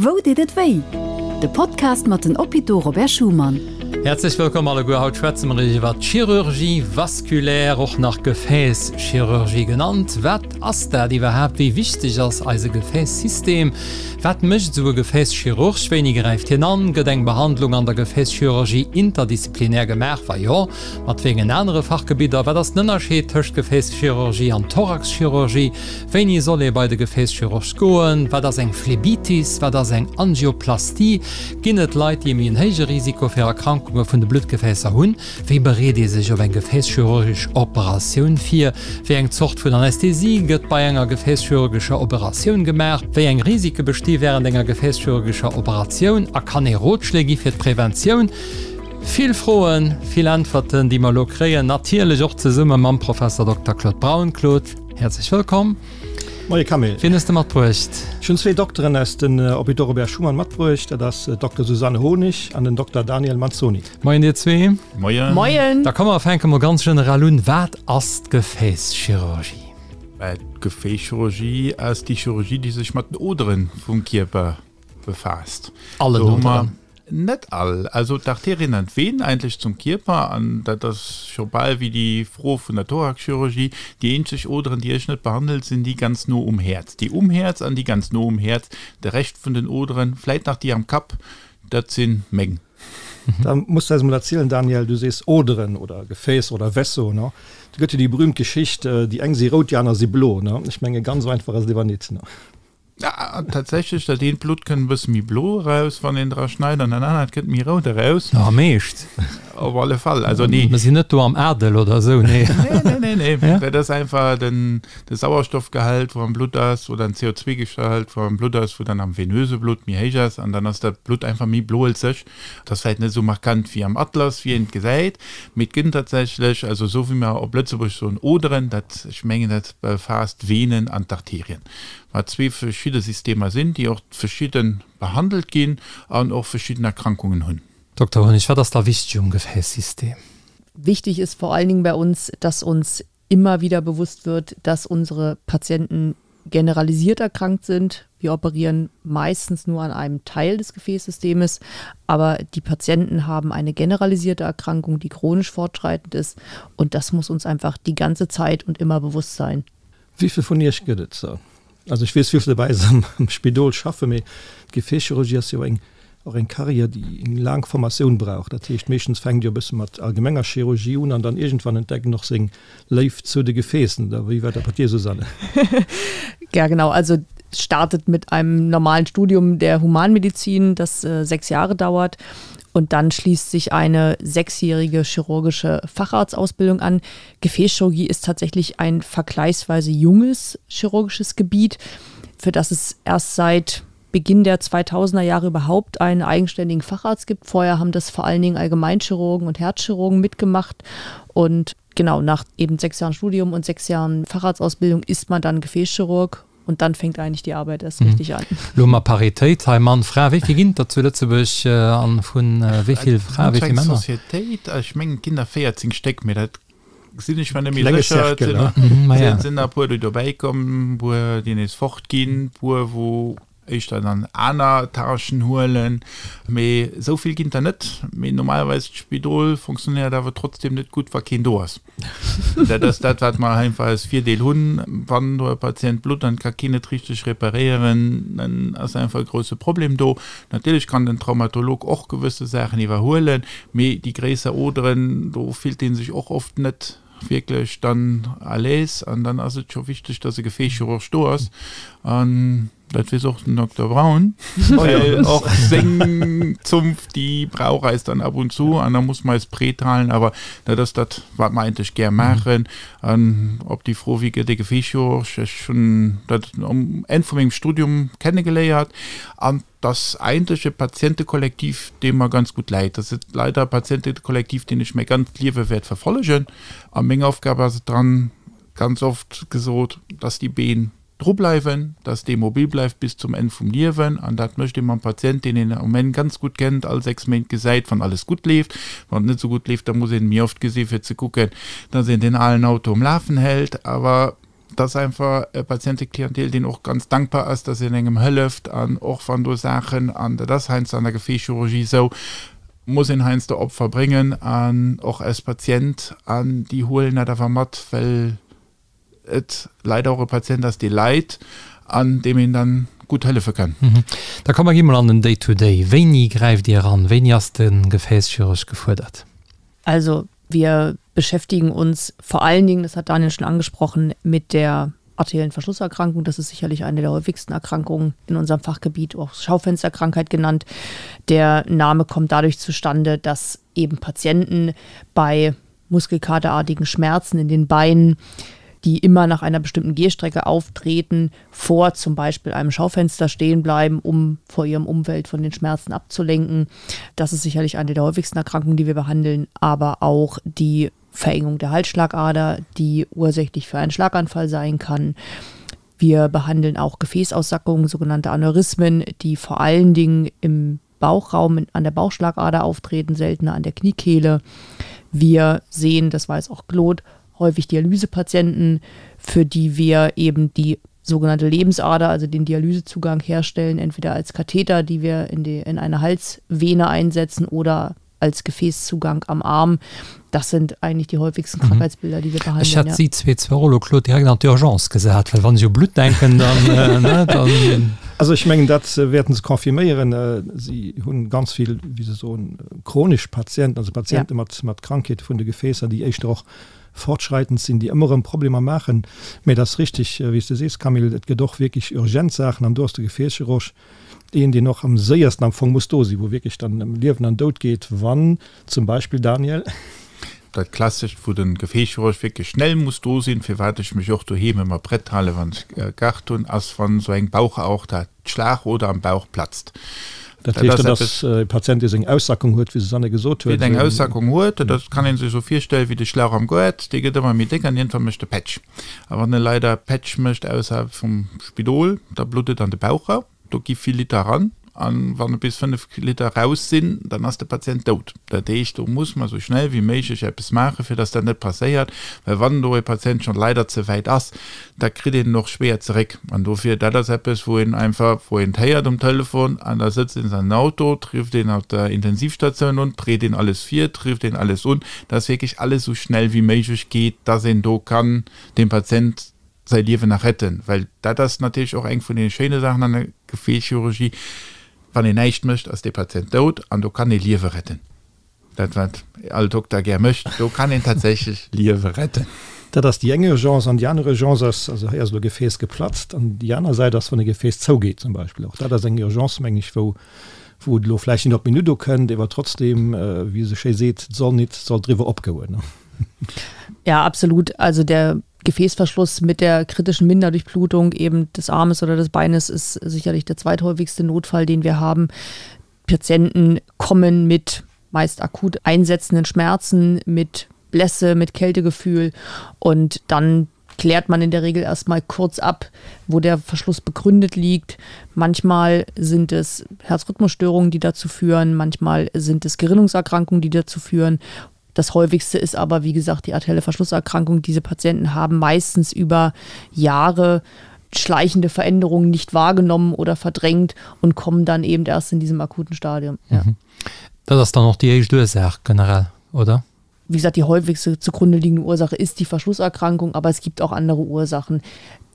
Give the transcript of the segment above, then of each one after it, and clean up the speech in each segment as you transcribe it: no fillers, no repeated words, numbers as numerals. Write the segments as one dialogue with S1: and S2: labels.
S1: Wou deet et wéi? De Podcast mat den Hôpitaux Robert Schuman.
S2: Häerzlech wëllkomm alleguer. Haut schwätze mer iwwer d'Chirurgie vasculaire, och nach Gefäässchirurgie genannt. Wat ass dat iwwerhaapt? Wéi wichteg ass eise Gefäässystem? Wat mécht esou e Gefäässchirurg? Wéini gräift hien an? Gëtt eng Behandlung an der Gefäässchirurgie interdisziplinär gemaach? Wa jo, mat wéi engen anere Fachgebidder? Wat ass den Ënnerscheed tëscht Gefäässchirurgie an Thoraxchirurgie? Wéini soll ee bei de Gefäässchirurg goen? Wat ass eng Phlebitis? Wat ass eng Angioplastie? Ginn et Leit, déi e méi en héije Risiko fir Erkrankunge vun de Bluttgefäässer hunn? Wéi bereet ee sech op eng gefäässchirurgesch Operatioun vir? Wéi eng Zort vun Anästhesie gëtt bei enger gefäässchirurgescher Operatioun gemaach? Wéi eng Risike besti wärend enger gefäässchirurgescher Operatioun? A kann ee Rotschléi gi fir d'Preventioun? Vill Froen, vill Äntwerten, déi mer elo kréien, natierlech och zesumme mam Professor Dokter Claude Braun. Claude, häerzlech wëllkomm.
S3: Moie Camille.
S2: Wien hues de matbruecht?
S3: Ech hunn zwee Dokteren aus den Hôpitaux Robert Schuman matbruecht. Dat ass d'Dokter Susanne Honig an den Dokter Daniel Manzoni.
S2: Moien dir zwee.
S4: Moien.
S5: Moien.
S2: Da komm mer fänke mol ganz generell un. Wat ass d'Gefäässchirurgie?
S4: D'Gefäässchirurgie ass déi Chirurgie, déi sech mat den Odere vum Kierper befaasst.
S2: Allen Oderen?
S4: Net all. Also d'Arterien an d'Venen eigentlech zum Kierper, an dat ass scho bal wéi déi Fro vun der Thoraxchirurgie, déi eenzeg Oderen, déi ech net behandelt, sinn déi ganz no um Häerz. Déi um Häerz an déi ganz no um Häerz. De Rescht vun den Oderen, vläit nach déi am Kapp, dat si meng.
S3: Da muss de eis emol erzielen, Daniel, du sees Oderen oder Gefääss oder Vaisseau, ne? Do gëtt jo déi berühmt Geschicht, déi eng si rout, déi aner si blo, ne? Ech menge ganz esou einfach ass et ewer nit, ne?
S4: Ja, tatsächlech, dat eent Blutt kënnt e bësse méi blo eraus, wann een dra schneit, an dat anert kënnt méi rout eraus.
S2: Am Eescht?
S4: Op alle Fall, also nee.
S2: Mer sinn net do am Adel oder esou,
S4: nee. Nee, nee, nee, nee. Ja? Dat ass einfach den, de Sauerstoffgehalt, wou am Blutt ass, oder den CO2-Gehalt, wou am Blutt ass, wou dann am venöse Blutt méi héich ass, an dann ass dat Blutt einfach méi bloelzeg. Dat ass vläicht net esou markant wéi am Atlas, wéi een et gesäit, mee et gënn tatsächlech, also esou wéi mer op Lëtzebuerg soen Oderen, dat, ech mengen, dat befaasst d'Venen an d'Arterien. Wat zwee verschidde Systemer sinn, déi och verschidde behandelt ginn an och verschidden Erkrankungen hunn.
S2: Dokter Honig, wat ass da wichteg um Gefäässsystem?
S5: Wichtig ist vor allen Dingen bei uns, dass uns immer wieder bewusst wird, dass unsere Patienten generalisiert erkrankt sind. Wir operieren meistens nur an einem Teil des Gefäßsystems, aber die Patienten haben eine generalisierte Erkrankung, die chronisch fortschreitend ist und das muss uns einfach die ganze Zeit und immer bewusst sein.
S3: Wéivill vun iech gëtt et der? Also ech weess wéivill der bei eis am Spidol schaffen, mee d'Gefäässchirurgie ass jo eng och eng Carrière, déi eng laang Formatioun brauch. Dat heescht, meeschtens fänkt jo e bësse mat allgemenger Chirurgie un an dann iergendwann entdeckt en och seng Léift zu de Gefäässen. Oder wéi war dat bei dir, Susanne?
S5: Ja genau, also es startet mit einem normalen Studium der Humanmedizin, das sechs Jahre dauert und dann schließt sich eine sechsjährige chirurgische Facharztausbildung an. Gefäßchirurgie ist tatsächlich ein vergleichsweise junges chirurgisches Gebiet, für das es erst seit Beginn der 2000er Jahre überhaupt einen eigenständigen Facharzt gibt. Vorher haben das vor allen Dingen Allgemeinchirurgen und Herzchirurgen mitgemacht und genau nach eben sechs Jahren Studium und sechs Jahren Facharztausbildung ist man dann Gefäßchirurg und dann fängt eigentlich die Arbeit erst mhm. richtig an.
S2: Lo mat Paritéit hei Mann Fra, wéi vill ginn der zu Lëtzebuerg an vun wéi vill Frae wéi vill Männer?
S4: Societéit, ech mengen et ginn der 14 Stéck, mee dat sinn ech mer net méi sécher. Et sinn der e puer déi dobäi komm, e puer déi nees fort ginn, e puer wou éischter dann aner Tâchen huelen, mee esou vill ginn der net. Mee normalerweis d'Spidol fonctionnéiert awer trotzdem net gutt, wa keen do ass. Dat ass dat, wat mer einfach als Virdeel hunn. Wann do e Patient blutt an et ka keen et richteg reparéieren, dann ass einfach e grousse Problem do. Natierlech kann den Traumatolog och gewësse Saachen iwwerhuelen, mee déi gréisser Oderen, do fillt ee sech och oft net wierklech dann à l'aise an dann ass et scho wichteg, dass e Gefäässchirurg do ass. An dat weess och den Dokter Braun, well och seng Zunft, déi brauch eis dann ab und zu an da muss mer eis prett halen. Awer dat ass dat, wat mer eigentlech gär maachen. An op déi Fro, wéi gëtt ee Gefäässchirurg, ech hunn dat um Enn vu mengem Studium kennegeléiert an 't ass eigentlech e Patientekollektiv, dee mer ganz gutt läit. Dat ass leider e Patientekollektiv, deen ech mäi ganzt Liewe wäert verfollegen. A meng Aufgab ass et dann, ganz oft gesot, dass déi Been dru bleiwen, dass dee mobil bleift bis zum Enn vum Liewen. An dat mécht ee mam Patient, deen een um Enn ganz gutt kennt, all 6 Méint gesäit, wann alles gutt leeft. Wann et net esou gutt leeft, da muss een méi oft gesi fir ze kucken, dass een deen alen Auto um Lafen hält. Awer. Et ass einfach e Patienteklientel, deen och ganz dankbar ass, dass een engem hëlleft an och wann do Saachen, an dat ass heiansdo an der Gefäßchirurgie esou, muss een heiansdo Opfer bréngen an och als Patient an déi huelen dat awer mat, well et leider och e Patient ass, dee leit an deem een dann gutt hëllefe kann.
S2: Da komm mer gi mol an den Day-to-Day. Wéini gräift Dir eran? Wéini ass de Gefäßchirurg gefuerdert?
S5: Also wir beschäftigen uns vor allen Dingen, das hat Daniel schon angesprochen, mit der arteriellen Verschlusserkrankung. Das ist sicherlich eine der häufigsten Erkrankungen in unserem Fachgebiet, auch Schaufensterkrankheit genannt. Der Name kommt dadurch zustande, dass eben Patienten bei muskelkaterartigen Schmerzen in den Beinen, die immer nach einer bestimmten Gehstrecke auftreten, vor zum Beispiel einem Schaufenster stehen bleiben, um vor ihrem Umfeld von den Schmerzen abzulenken. Das ist sicherlich eine der häufigsten Erkrankungen, die wir behandeln, aber auch die Verengung der Halsschlagader, die ursächlich für einen Schlaganfall sein kann. Wir behandeln auch Gefäßaussackungen, sogenannte Aneurysmen, die vor allen Dingen im Bauchraum an der Bauchschlagader auftreten, seltener an der Kniekehle. Wir sehen, das weiß auch Claude, häufig Dialysepatienten, für die wir eben die sogenannte Lebensader, also den Dialysezugang herstellen, entweder als Katheter, die wir in, die, in eine Halsvene einsetzen oder als Gefäßzugang am Arm. Das sind eigentlich die häufigsten mhm. Krankheitsbilder, die wir behandeln.
S2: Ech hätt si zwee zwar och elo, Claude, direkt an d'Urgence gesat, well wann ech u Blutt denken, dann, ne, dann.
S3: Also ech mengen, dat wäerten se confirméieren. Si hunn ganz vill, wéi se soen, chronesch Patienten, also Patiente mat, mat Krankheete vun de Gefäässer, déi éischter och fortschreitend sinn, déi ëmmer erëm Problemer maachen. Mä et ass richtig, wéi s de sees, Camille, et gëtt och wierklech urgent Saachen an do ass de Gefäässchirurg Deen, deen och am séiersten am Fong muss do sinn, wou wierklech dann ëm Liewen an Doud geet, wann zum Beispill, Daniel.
S4: Dat Klassescht, wou de Gefäßchirurg wierklech schnell muss do sinn, firwat ech mech och doheem ëmmer prett halen, wann ech Garde hunn, ass, wann esou eng Bauchaorta, d'Schlagoder am Bauch platzt.
S3: Dat heescht, dat ass e Patient, dee seng Aussackung huet, wéi Susanne gesot huet.
S4: Deen eng Aussackung huet, dat kann ee sech esou virstellen, wéi de Schlauch am Goart, dee gëtt ëmmer méi déck an iergendwann mécht e Pätsch. A wann e leider Pätsch mécht ausserhalb vum Spidol, da blutt et an de Bauchraum, do gi vill Liter eran an wann et bis 5 Liter raus sinn, dann ass de Patient dout. Dat heescht, do muss mer esou schnell wéi méiglech eppes maachen, fir dass dat net passéiert, well wann do e Patient schonn leider ze wäit ass, da kritt een en och schwéier zeréck. An dofir, dat ass eppes, wou een einfach, wou een et héiert um Telefon an da sëtzt een an den Auto, trifft een op der Intensivstatioun un, bereet een alles vir, trifft een alles un, dass wierklech alles esou schnell wéi méiglech geet, dass een do kann dem Patient säi Liewen nach retten, well dat ass natierlech och eng vun deene schéine Saachen an der Gefäßchirurgie, wann een näischt mécht, ass dee Patient dout an do kann ee Liewe retten. Dat wat all Dokter gär mécht, do kann een tatsächlech Liewe retten.
S3: Dat ass déi eng Urgence. An déi aner Urgence ass, also hei ass elo e Gefäß geplatzt, an déi aner Säit ass, wann e Gefäß zougeet zum Beispill. Och dat ass eng Urgence, meng ech, wou wou et elo vläicht net op d'Minutt ukënnt, ewer trotzdem, wéi se schéi seet, et soll nit soll driwwer opgoen.
S5: Ja, absolut. Also der Gefäßverschluss mit der kritischen Minderdurchblutung eben des Armes oder des Beines ist sicherlich der zweithäufigste Notfall, den wir haben. Patienten kommen mit meist akut einsetzenden Schmerzen, mit Blässe, mit Kältegefühl und dann klärt man in der Regel erstmal kurz ab, wo der Verschluss begründet liegt. Manchmal sind es Herzrhythmusstörungen, die dazu führen, manchmal sind es Gerinnungserkrankungen, die dazu führen. Das häufigste ist aber, wie gesagt, die arterielle Verschlusserkrankung. Diese Patienten haben meistens über Jahre schleichende Veränderungen nicht wahrgenommen oder verdrängt und kommen dann eben erst in diesem akuten Stadium. Ja.
S2: Mhm. Dat ass dann och déi éischt Ursaach generell, oder?
S5: Wie gesagt, die häufigste zugrunde liegende Ursache ist die Verschlusserkrankung, aber es gibt auch andere Ursachen.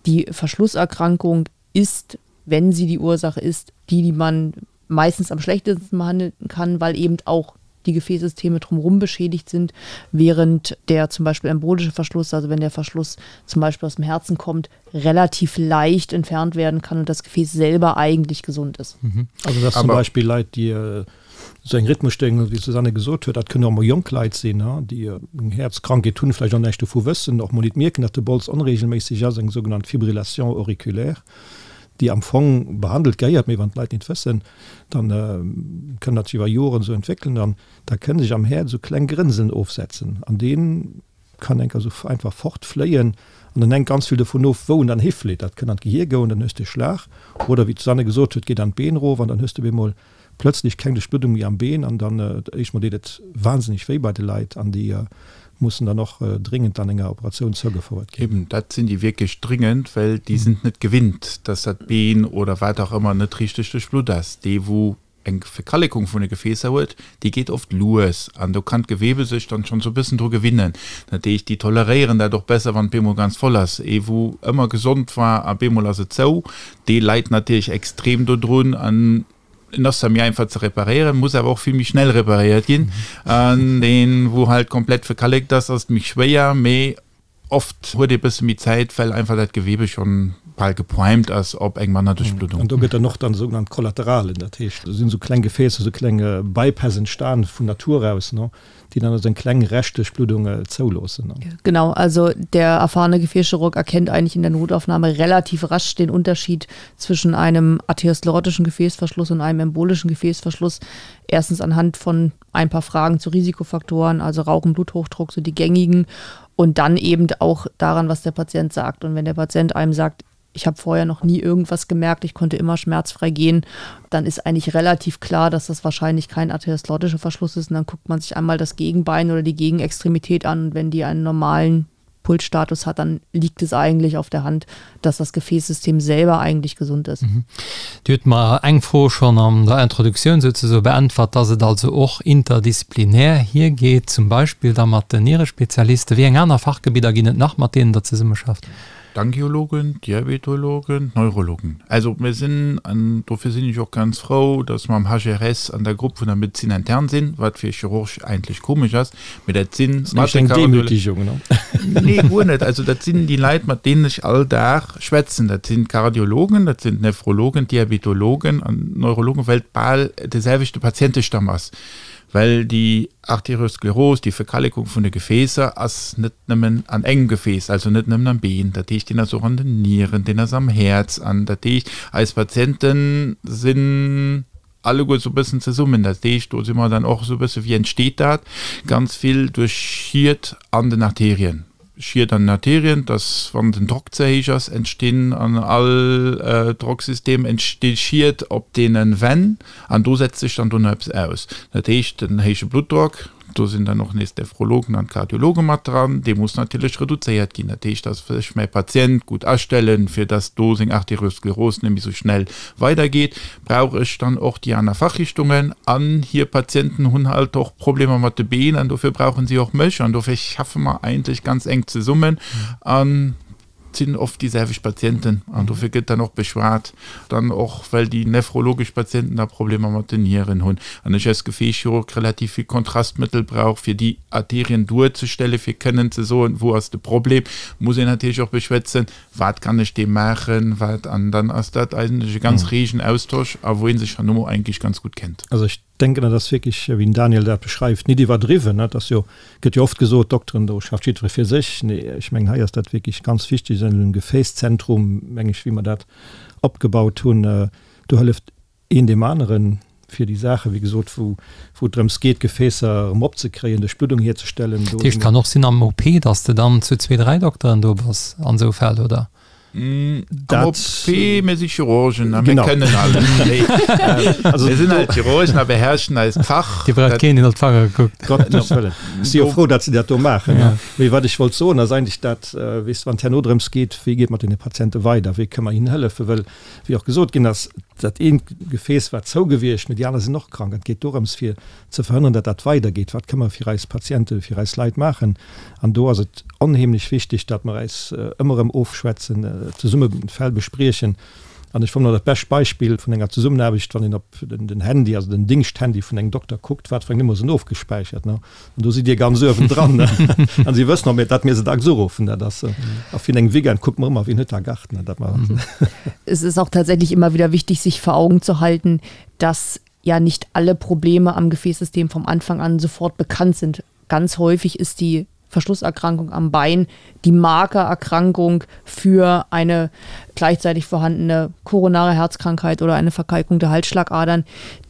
S5: Die Verschlusserkrankung ist, wenn sie die Ursache ist, die, die man meistens am schlechtesten behandeln kann, weil eben auch die Gefäßsysteme drumherum beschädigt sind, während der zum Beispiel embolische Verschluss, also wenn der Verschluss zum Beispiel aus dem Herzen kommt, relativ leicht entfernt werden kann und das Gefäß selber eigentlich gesund ist.
S3: Mhm. Also das zum Beispiel Leit, déi äh, sou eng Rhythmusstörung hunn, wéi d'Susanne gesot huet, dat kënnen och mol jonk Leit sinn, déi eng Häerzkrankheet hunn, vläicht och näischt dovu wëssen, och mol nit mierken, datt de Bols onreegelméisseg ass, eng sougenannt Fibrillation auriculaire, déi am Fong behandelt gehéiert, mee wann d'Leit nit wëssen, dann kënn dat sech iwwer Joren esou entwéckelen an da kënne sech am Häerz esou kleng Grënseln ofsetzen an dee kann enker esou einfach fortfléien an dann hänkt ganz vill dovun of, wou en dann hiflitt. Dat kënn an d'Gehier goen, dann hues de e Schlag oder wéi d'Susanne gesot huet, geet an d'Been erof an dann hues de op eemol. plötzlech keng Duerchbluddung méi am Been an dann éischt mol deet et wahnsinneg wéi bei de Leit an déi mussen dann och dringend dann enger Operatioun zougefouert
S4: ginn. Eben, dat sinn déi wierklech dringend, well déi sinn et net gewinnt, dass dat Been oder wat och ëmmer net richteg duerchblutt ass. Dee wou eng Verkallekung vun de Gefäässer huet, déi geet oft lues an do kann d'Gewebe sech dann schonn sou e bëssen dru gewinnen. Dat heescht, déi toleréieren dat och besser, wann et bemol ganz voll ass. Ee wou ëmmer gesond war a bemol ass et zou, dee leit natierlech extrem dodrun an en ass zwar méi einfach ze reparéieren, muss awer och vill méi schnell reparéiert ginn. An deen, wou halt komplett verkallekt ass, ass et méi schwéier, mee Oft huet ee bësse méi Zäit, well einfach dat Gewebe schonn bal geprimed ass op eng manner Duerchbluddung.
S3: An do gëtt dann och dann sougenannt Kollateralen, dat heescht, do sinn esou kleng Gefäässer, esou kleng Bypass entstan vun Natur aus, ne, déi dann also eng kleng Reschtduerchbluddung zouloossen.
S5: Genau, also der erfahrene Gefäßchirurg erkennt eigentlich in der Notaufnahme relativ rasch den Unterschied zwischen einem arteriosklerotischen Gefäßverschluss und einem embolischen Gefäßverschluss. Erstens anhand von ein paar Fragen zu Risikofaktoren, also Rauchen, Bluthochdruck, so die gängigen und dann eben auch daran, was der Patient sagt. Und wenn der Patient einem sagt, ich habe vorher noch nie irgendwas gemerkt, ich konnte immer schmerzfrei gehen, dann ist eigentlich relativ klar, dass das wahrscheinlich kein arteriosklerotischer Verschluss ist. Und dann guckt man sich einmal das Gegenbein oder die Gegenextremität an. Und wenn die einen normalen Pulsstatus hat, dann liegt es eigentlich auf der Hand, dass das Gefäßsystem selber eigentlich gesund ist. Mhm.
S2: Dir hutt mer eng Fro schonn an der Introduktioun souzesoe beäntwert, dass et also och interdisziplinär hiergeet, zum Beispill da mat den Nierespezialisten. Wéi eng aner Fachgebidder ginn et nach, mat deenen Der zesummeschafft?
S4: D'Angiologen, d'Diabetologen, d'Neurologen. Also mir sinn, an dofir sinn ech och ganz frou, dass mer am HRS an der Grupp vun der Médecine interne sinn, wat fir e Chirurg eigentlech komesch ass, Mee dat sinn
S3: mat de Demütigung,
S4: ne? Nee, guer net. Also dat sinn déi Leit, mat deenen ech all Dag schwätzen. Dat sinn d'Kardiologen, dat sinn d'Nephrologen, d'Diabetologen an d'Neurologen, well et bal de selwechte Patientestamm ass. Well déi Arterioskleros, déi Verkallekung vun de Gefäässer, ass net nëmmen an engem Gefääss, also net nëmmen am Been. Dat heescht, deen ass och an den Nieren, deen ass am Häerz. An dat heescht, eis Patiente sinn alleguer esou e bëssen zesummen. Dat heescht, do si mer dann och esou e bësse, wéi entsteet dat? Ganz vill duerch Schied an den Arterien. Schied an den Arterien, dass wann den Drock ze héich ass, entstinn an all Drocksystem entsti Schied op deene Wänn an do setzt sech dann dono eppes aus. Dat heescht, den héije Bluttdrock, Do sinn dann och nees d'Nephrologen an d'Kardiologe mat dran. Dee muss natierlech reduzéiert ginn. Dat heescht, dass ech mäi Patient gutt astellen, fir dass do seng Arterioskleros net méi sou schnell weidergeet, brauch ech dann och déi aner Fachrichtungen. An hir Patienten hunn halt och Problemer mat de Been an dofir brauche si och mech. An dofir schaffe mer eigentlech ganz enk zesummen. An Et sinn oft déi selwecht Patienten an dofir gëtt dann och beschwat, dann och well déi nephrologesch Patienten da Problemer mat den Nieren hunn an ech als Gefäßchirurg relativ vill Kontrastmëttel brauch, fir déi Arterien duerzestellen, fir kënnen ze soen, wou ass de Problem, muss een natierlech och beschwätzen, wat kann ech deem maachen, wat, an dann ass dat eigentlech e ganz regen Austosch a wou ee sech herno eigentlech ganz gutt kennt.
S3: Also ech denken, dat ass wierklech, wéi den Daniel dat beschreift, nit iwwerdriwwen. Et ass jo, gëtt jo oft gesot, Dokteren, do schafft jiddweree fir sech. Nee, ech mengen, hei ass dat wierklech ganz wichteg, an engem Gefäßzentrum, meng ech, wéi mer dat opgebaut hunn, do hëlleft een deem aneren, fir déi Saachen, wéi gesot, wou, wou et drëms geet, Gefäässer erëm opzekréien, Duerchbluddung hierzestellen.
S2: Dat heescht, kann och sinn am OP, datt s de dann zu zwee, dräi Dokteren do bass an esou Fäll, oder?
S4: Am OP, mir si Chirurgen a mir kënnen alles. Mir sinn halt Chirurgen a beherrschen eist Fach.
S2: Dir braucht keen, deen op d'Fanger kuckt.
S3: Gottes Wëllen. Ech si jo frou, datt se dat do maachen. Mee wat ech wollt soen, ass eigentlech dat, weess de, wann et herno drëms geet, wéi geet mat deene Patiente weider, wéi kënne mer hinnen hëllefen, well, wéi och gesot ginn ass, dat eent Gefääss war zou gewiescht, mee déi aner sinn och krank. An et geet dorëms, fir ze verhënneren, datt dat weidergeet. Wat kënne mer fir eis Patienten, fir eis Leit maachen? An do ass et onheemlech wichteg, datt mer äis ëmmer erëm ofschwätzen, zesumme Fäll bespriechen. An ech fannen dat bescht Beispill vun enger Zesummenaarbecht, wann een op den Handy, also den Dingschthandy vun engem Dokter kuckt, wat fir eng Nummer sinn ofgespäichert. An do sidd Dir ganz uewendran. An si wëssen och, datt mir se dacks uruffen. Dat ass, a fir engem Weekend kucke mer ëmmer, wien huet da Garten.
S5: Dat mer. Es ist auch tatsächlich immer wieder wichtig, sich vor Augen zu halten, dass ja nicht alle Probleme am Gefäßsystem vom Anfang an sofort bekannt sind. Ganz häufig ist die Verschlusserkrankung am Bein die Markererkrankung für eine gleichzeitig vorhandene koronare Herzkrankheit oder eine Verkalkung der Halsschlagadern,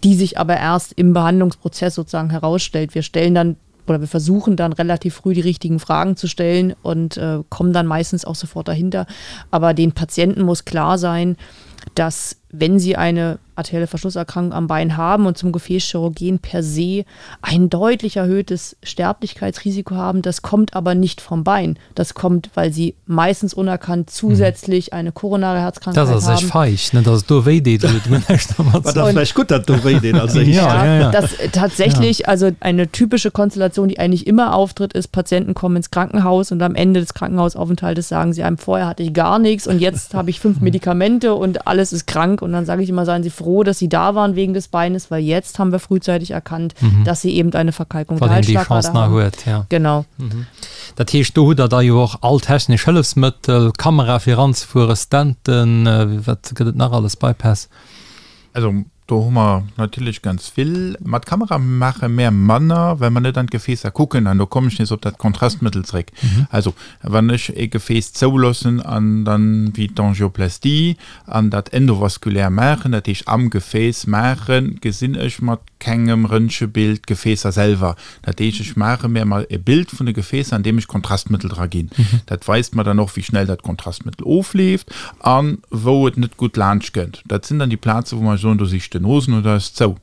S5: die sich aber erst im Behandlungsprozess sozusagen herausstellt. Wir stellen dann oder wir versuchen dann relativ früh die richtigen Fragen zu stellen und äh, kommen dann meistens auch sofort dahinter. Aber den Patienten muss klar sein, dass dass wenn sie eine arterielle Verschlusserkrankung am Bein haben und zum Gefäßchirurg gehen, per se ein deutlich erhöhtes Sterblichkeitsrisiko haben. Das kommt aber nicht vom Bein. Das kommt, weil sie meistens unerkannt zusätzlich eine koronare Herzkrankheit
S2: Das ass
S5: haben.
S2: echt feig, ne, dass et do wéi deet, huet mir näischt dermat
S3: War
S2: ze
S3: da vläicht gutt, dat do wéi deet als éischt.
S2: Ja, ja, ja.
S5: Das tatsächlich, also eine typische Konstellation, die eigentlich immer auftritt, ist, Patienten kommen ins Krankenhaus und am Ende des Krankenhausaufenthaltes sagen sie einem, vorher hatte ich gar nichts und jetzt habe ich fünf Medikamente und alles ist krank. Und dann sage ich immer, seien Sie froh, dass Sie da waren wegen des Beines, weil jetzt haben wir frühzeitig erkannt, dass Sie eben eine Verkalkung der
S2: Wann een déi
S5: Halsschlagader
S2: Chance nach
S5: haben.
S2: huet, ja.
S5: Genau.
S2: Dat heescht, do hutt Der da jo och all technesch Hëllefsmëttel, Kamera fir eranzefueren, Stenten, wat gëtt et nach alles, Bypass?
S4: Also do hu mer natierlech ganz vill. Mat Kamera maache mär manner, well mer net an d'Gefäässer kucken. An do kommen ech nees op dat Kontrastmëttel zréck. Also wann ech e Gefääss zouloossen an dann, wéi d'Angioplastie, an dat endovaskulär maachen, dat heescht am Gefääss maachen, gesinn ech mat kengem Röntgebild d'Gefäässer selwer. Dat heescht, ech maache mir emol e Bild vun de Gefäässer, an deem ech Kontrastmëttel dra ginn. Dat weist mer dann och, wéi schnell dat Kontrastmëttel ofleeft a wou et net gutt laanscht kënnt. Dat sinn dann déi Plaze wou mer soen, do si Stenosen oder ass zou.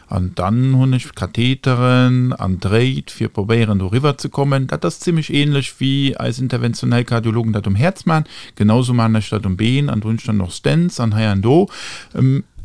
S4: An dann hunn ech Katheteren an Dréit, fir probéieren doriwwer ze kommen. Dat ass zimmlech ähnlech wéi eis interventionell Kardiologen dat um Häerz maachen. Genausou maachen ech dat um Been an do hunn ech dann och Stents an hei an do.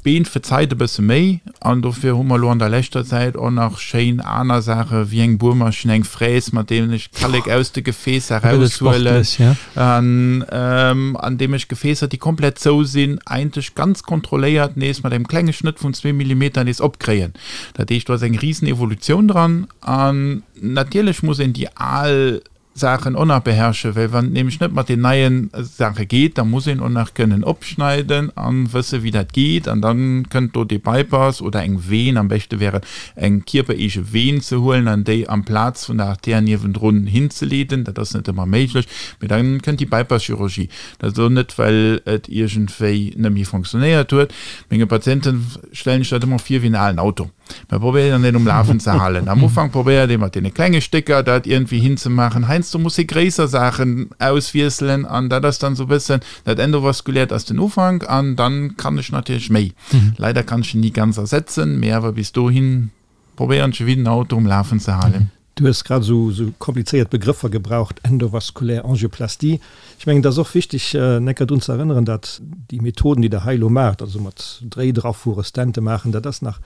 S4: D'Been verzeit e bësse méi an dofir hu mer elo an der leschter Zäit och nach schéin aner Saache wéi eng Buermaschinn, eng Fräs, mat deenen ech Kallek aus de Gefäässer eraushuelen an an deem ech Gefäässer, déi komplett zou sinn, eigentlech ganz kontrolléiert nees mat engem klenge Schnëtt vun zwee Millimeter nees opkréien. Dat heescht, do ass eng risen Evolutioun dran an natierlech muss een déi al Saachen och nach beherrschen, well wann et nämlech net mat den neien Saache geet, da muss een och nach kënnen opschneiden an wësse wéi dat geet an dann kënnt do dee Bypass oder eng Veen, am beschte wär et eng kierpereege Veen ze huelen an déi amplaz vun der Artär niewendrun hinzeleeden, dat ass net ëmmer méiglech, mee dann kënnt déi Bypass-Chirurgie. Dat ass och net well et iergendwéi net méi fonctionnéiert huet. Menge Patienten stellen ech dat ëmmer vir wéi en alen Auto. Mer probéieren deen um Lafen ze halen. Am Ufank probéiert ee mat deene klenge Stécker dat iergendwéi hinzemaachen. Heiansdo muss ee gréisser Saachen auswiesselen an dat ass dann esou e bëssen dat Endovaskuläert ass den Ufank an dann kann ech natierlech méi. Leider kann ech en ni ganz ersetzen, mee awer bis dohin probéieren ech e wéi den Auto um Lafen ze halen.
S3: Du hues grad esou esou komplizéiert Begrëffer gebraucht, endovaskulär Angioplastie. Ech mengen, et ass och wichteg, en Kéier drun ze erënneren, datt déi Methoden, déi Der hei elo maacht, also mat Dréit erafuere, Stente maachen, dat ass nach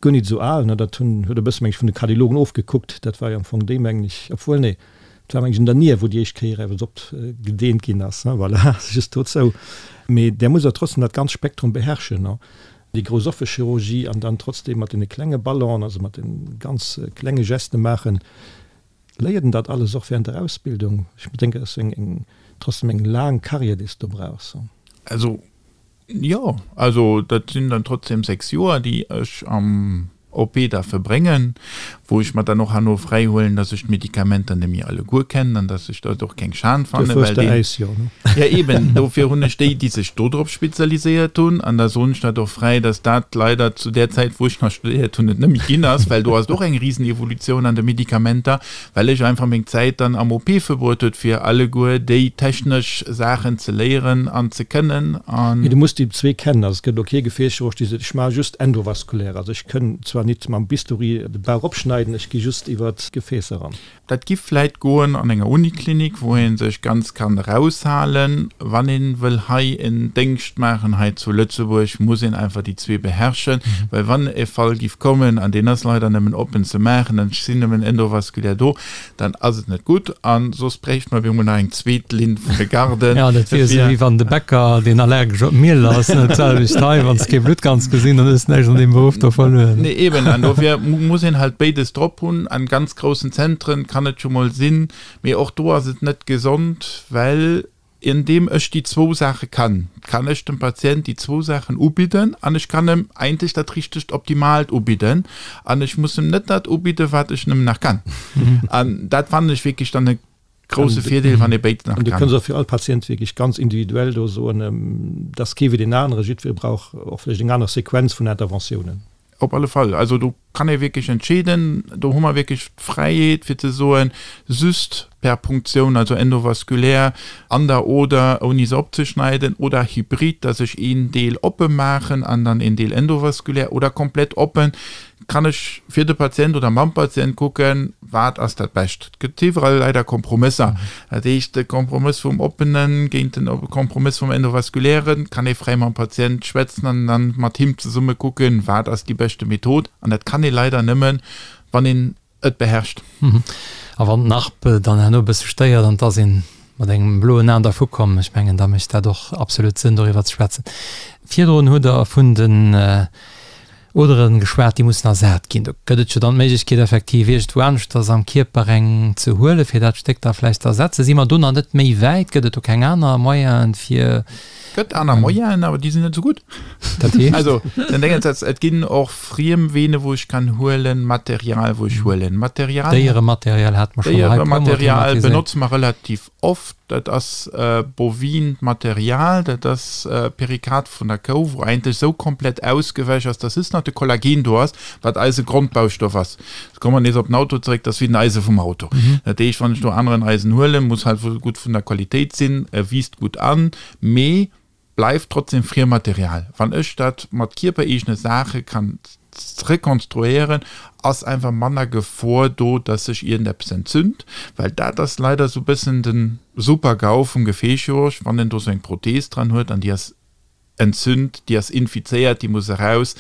S3: guer nit esou al. Dat hunn, huet e bësse, meng ech, vun de Kardiologen ofgekuckt. Dat war jo am Fong déi, mengen ech, obwuel, nee, et war, meng ech, un der Nier, wou déi éischt Kéier eppes opgedeent ginn ass. Voilà, just dozou. Mee där musst Der trotzdem dat ganz Spektrum beherrschen. Déi grouss offe Chirurgie an dann trotzdem mat deene klenge Ballonen, also mat de ganz klenge Geste maachen. Léiert een dat alles och während der Ausbildung? Ech denken, dat ass eng, eng, trotzdem eng laang Carrière, déi s de do brauchs.
S4: Also, jo, also dat sinn dann trotzdem 6 Joer, déi ech am OP da verbréngen, wou ech mer dann och herno fräihuelen, dass ech d'Medikamenter net méi alleguer kennen an dass ech dat och keng Schan fannen, well deen. Ja eben, dofir hunn ech déi, déi sech dodrop spezialiséiert hunn, an da soen ech dat och fräi, dass dat leider zu där Zäit, wou ech nach studéiert hunn, et net méi ginn ass, well do ass et och eng Risenevolutioun an de Medikamenter. Well ech einfach meng Zäit dann am OP verbruet huet fir alleguer déi technesch Saachen ze léieren an ze kënnen an.
S3: Mee du muss déi zwee kennen. Also et gëtt elo kee Gefäßchirurg dee seet, ech maache just endovaskulär, also ech kënn zwar nit mam Bistouri de Bauch opschneiden, ech gi just iwwer d'Gefäässer eran.
S4: Dat giff vläit goen an enger Uniklinik, wou ee sech ganz kann eraushalen. Wann ee wëll hei en Déngscht maachen hei zu Lëtzebuerg, muss een einfach déi zwee beherrschen, well wann e Fall giff kommen, an deen ass leider nëmmen oppen ze maachen, an ech sinn nëmmen endovaskulär do, dann ass et net gutt, a soss bréicht mer op eemol nach eng zweet Linn vun de Garden.
S2: Jo, dat wier esou wéi wann de Bäcker, deen allergesch op Miel ass, net d'selwecht hei, wann s kee Blutt kanns gesinn, dann hues näischt an deem Beruff do verluer.
S4: Nee, eben, an dofir muss een halt béides drop hunn. An ganz groussen Zentren kann et scho mol sinn, mee och do ass et net gesond, well Andeem ech déi zwou Saache kann, kann ech dem Patient déi zwou Saachen ubidden an ech kann em eigentlech dat richtegt Optimalt ubidden an ech muss em net dat ubidden, wat ech nëmmen nach kann. An dat fannen ech wierklech dann e grouse Virdeel, wann ee béides nach
S3: kann. An du
S4: kënns
S3: och fir all Patient wierklech ganz individuell do soen, dat ass kee wéi deen anere, jiddweree brauch och vläicht eng aner Sequenz vun Interventiounen.
S4: Op alle Fall. Also do. kann ee wierklech entscheeden, do hu mer wierklech d'Fräiheet fir ze soen, just per Punktioun, also endovaskulär an der Oder, ouni se opzeschneiden, oder hybrid, dass ech een Deel oppe maachen an dann een Deel endovaskulär, oder komplett oppen, kann ech fir de Patient oder mam Patient kucken, wat ass dat Bescht. Et gëtt iwwerall leider Kompromësser. Dat heescht, de Kompromëss vum Oppene géint den Kompromëss vum Endovaskulären, kann ee fräi mam Patient schwätzen an dann mat him zesumme kucken, wat ass déi beschte Method. An dat kann ee leider nëmmen, wann een et beherrscht.
S2: A wann d'Narb dann herno e bësse stéiert an et ass een mat engem bloen Aen dervu komm, ech mengen, da mécht dat och absolut Sënn, doriwwer ze schwätzen. Virdrun hutt Der vun den Oderen geschwat, déi mussen ersat ginn. Do gëtt et jo dann d'Méiglechkeet effektiv iergendwou aneschters am Kierper eng ze huelen, fir dat Stéck da vläicht ze ersetzen. Si mer do nach net méi wäit? Gëtt et do keng aner Moyenen, fir.
S4: Gëtt aner Moyenen, awer déi sinn net esou gutt.
S2: Dat heescht?
S4: Also, den Déngens ass, et ginn och friem Vene wou ech kann huelen, Material wou ech huelen. Material.
S2: Déierematerial hate mer schonn hei e puermol
S4: Déierematerial thematiséiert. benotze mer relativ Oft, dat ass bovint Material, dat ass Perikard vun der Kou, wou eigentlech esou komplett ausgewäsch ass, dass just nach de Kollagen do ass, wat eise Grondbaustoff ass. Jetzt komme mer nees op den Auto zeréck, dat ass wéi den Eise vum Auto. Dat heescht, wann ech do aneren Eisen huelen, muss halt gutt vun der Qualitéit sinn, e wiisst gutt an, mee bleift trotzdem Friermaterial. Wann ech dat mat kierpereegene Saache kann rekonstruéieren, ass einfach manner Gefor do, dass sech iergendeppes entzünd, well dat ass leider esou bëssen de Super-GAU vum Gefäßchirurg, wann en do sou eng Prothees dran huet an déi ass entzünd, déi ass infizéiert, déi muss eraus.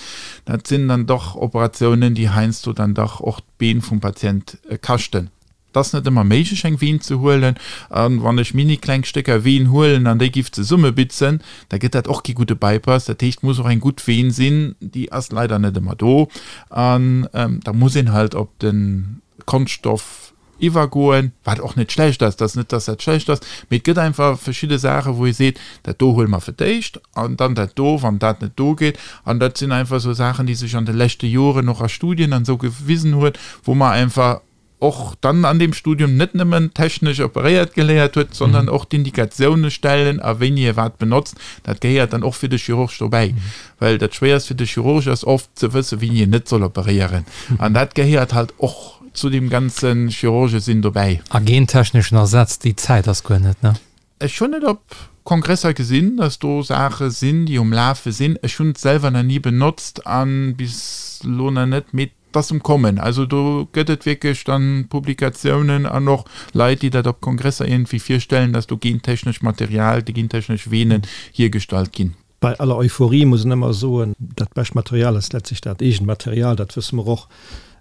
S4: Dat sinn dann dach Operatiounen, déi heiansdo dann dach och d'Been vum Patient kaschten. Et ass net ëmmer méiglech eng Veen ze huelen, a wann ech mini kleng Stécker Veen huelen an déi giff zesummebitzen, da gëtt dat och kee gudde Bypass. Dat heescht, et muss och eng gutt Veen sinn, déi ass leider net ëmmer do, an da muss een halt op de Konschtstoff iwwergoen, wat och net schlecht ass, et ass net, dass dat schlecht ass, mee et gëtt einfach verschidde Saache wou ee seet, dat do huele mer fir d'éischt an dann dat do, wann dat net do geet. An dat sinn einfach esou Saachen, déi sech an de leschte Joren och a Studien an esou gewisen huet, wou mer einfach och dann an deem Studium net nëmmen technesch operéiert geléiert huet, sondern och d'Indikatioune stellen a wéini e wat benotzt, dat gehéiert dann och fir de Chirurg dobäi. Well dat Schwéierst fir de Chirurg ass oft ze wëssen, wéini en net soll operéieren. An dat gehéiert halt och zu deem ganze Chirurgesinn dobäi.
S2: A gentechneschen Ersatz, déi Zäit ass guer net, ne?
S4: Ech hunn et op Kongresser gesinn, dass do Saache sinn, déi um Lafe sinn. Ech hunn et selwer nach ni benotzt a bis elo nach net, mee et ass um Kommen. Also do gëtt et wierklech dann Publikatiounen an och Leit, déi dat op Kongresser iergendwéi virstellen, dass do gentechnescht Material, gentechnesch Veenen hiergestallt ginn.
S3: Bei aller Euphorie muss een ëmmer soen, dat bescht Material ass letztlich dat eegent Material, dat wësse mer och.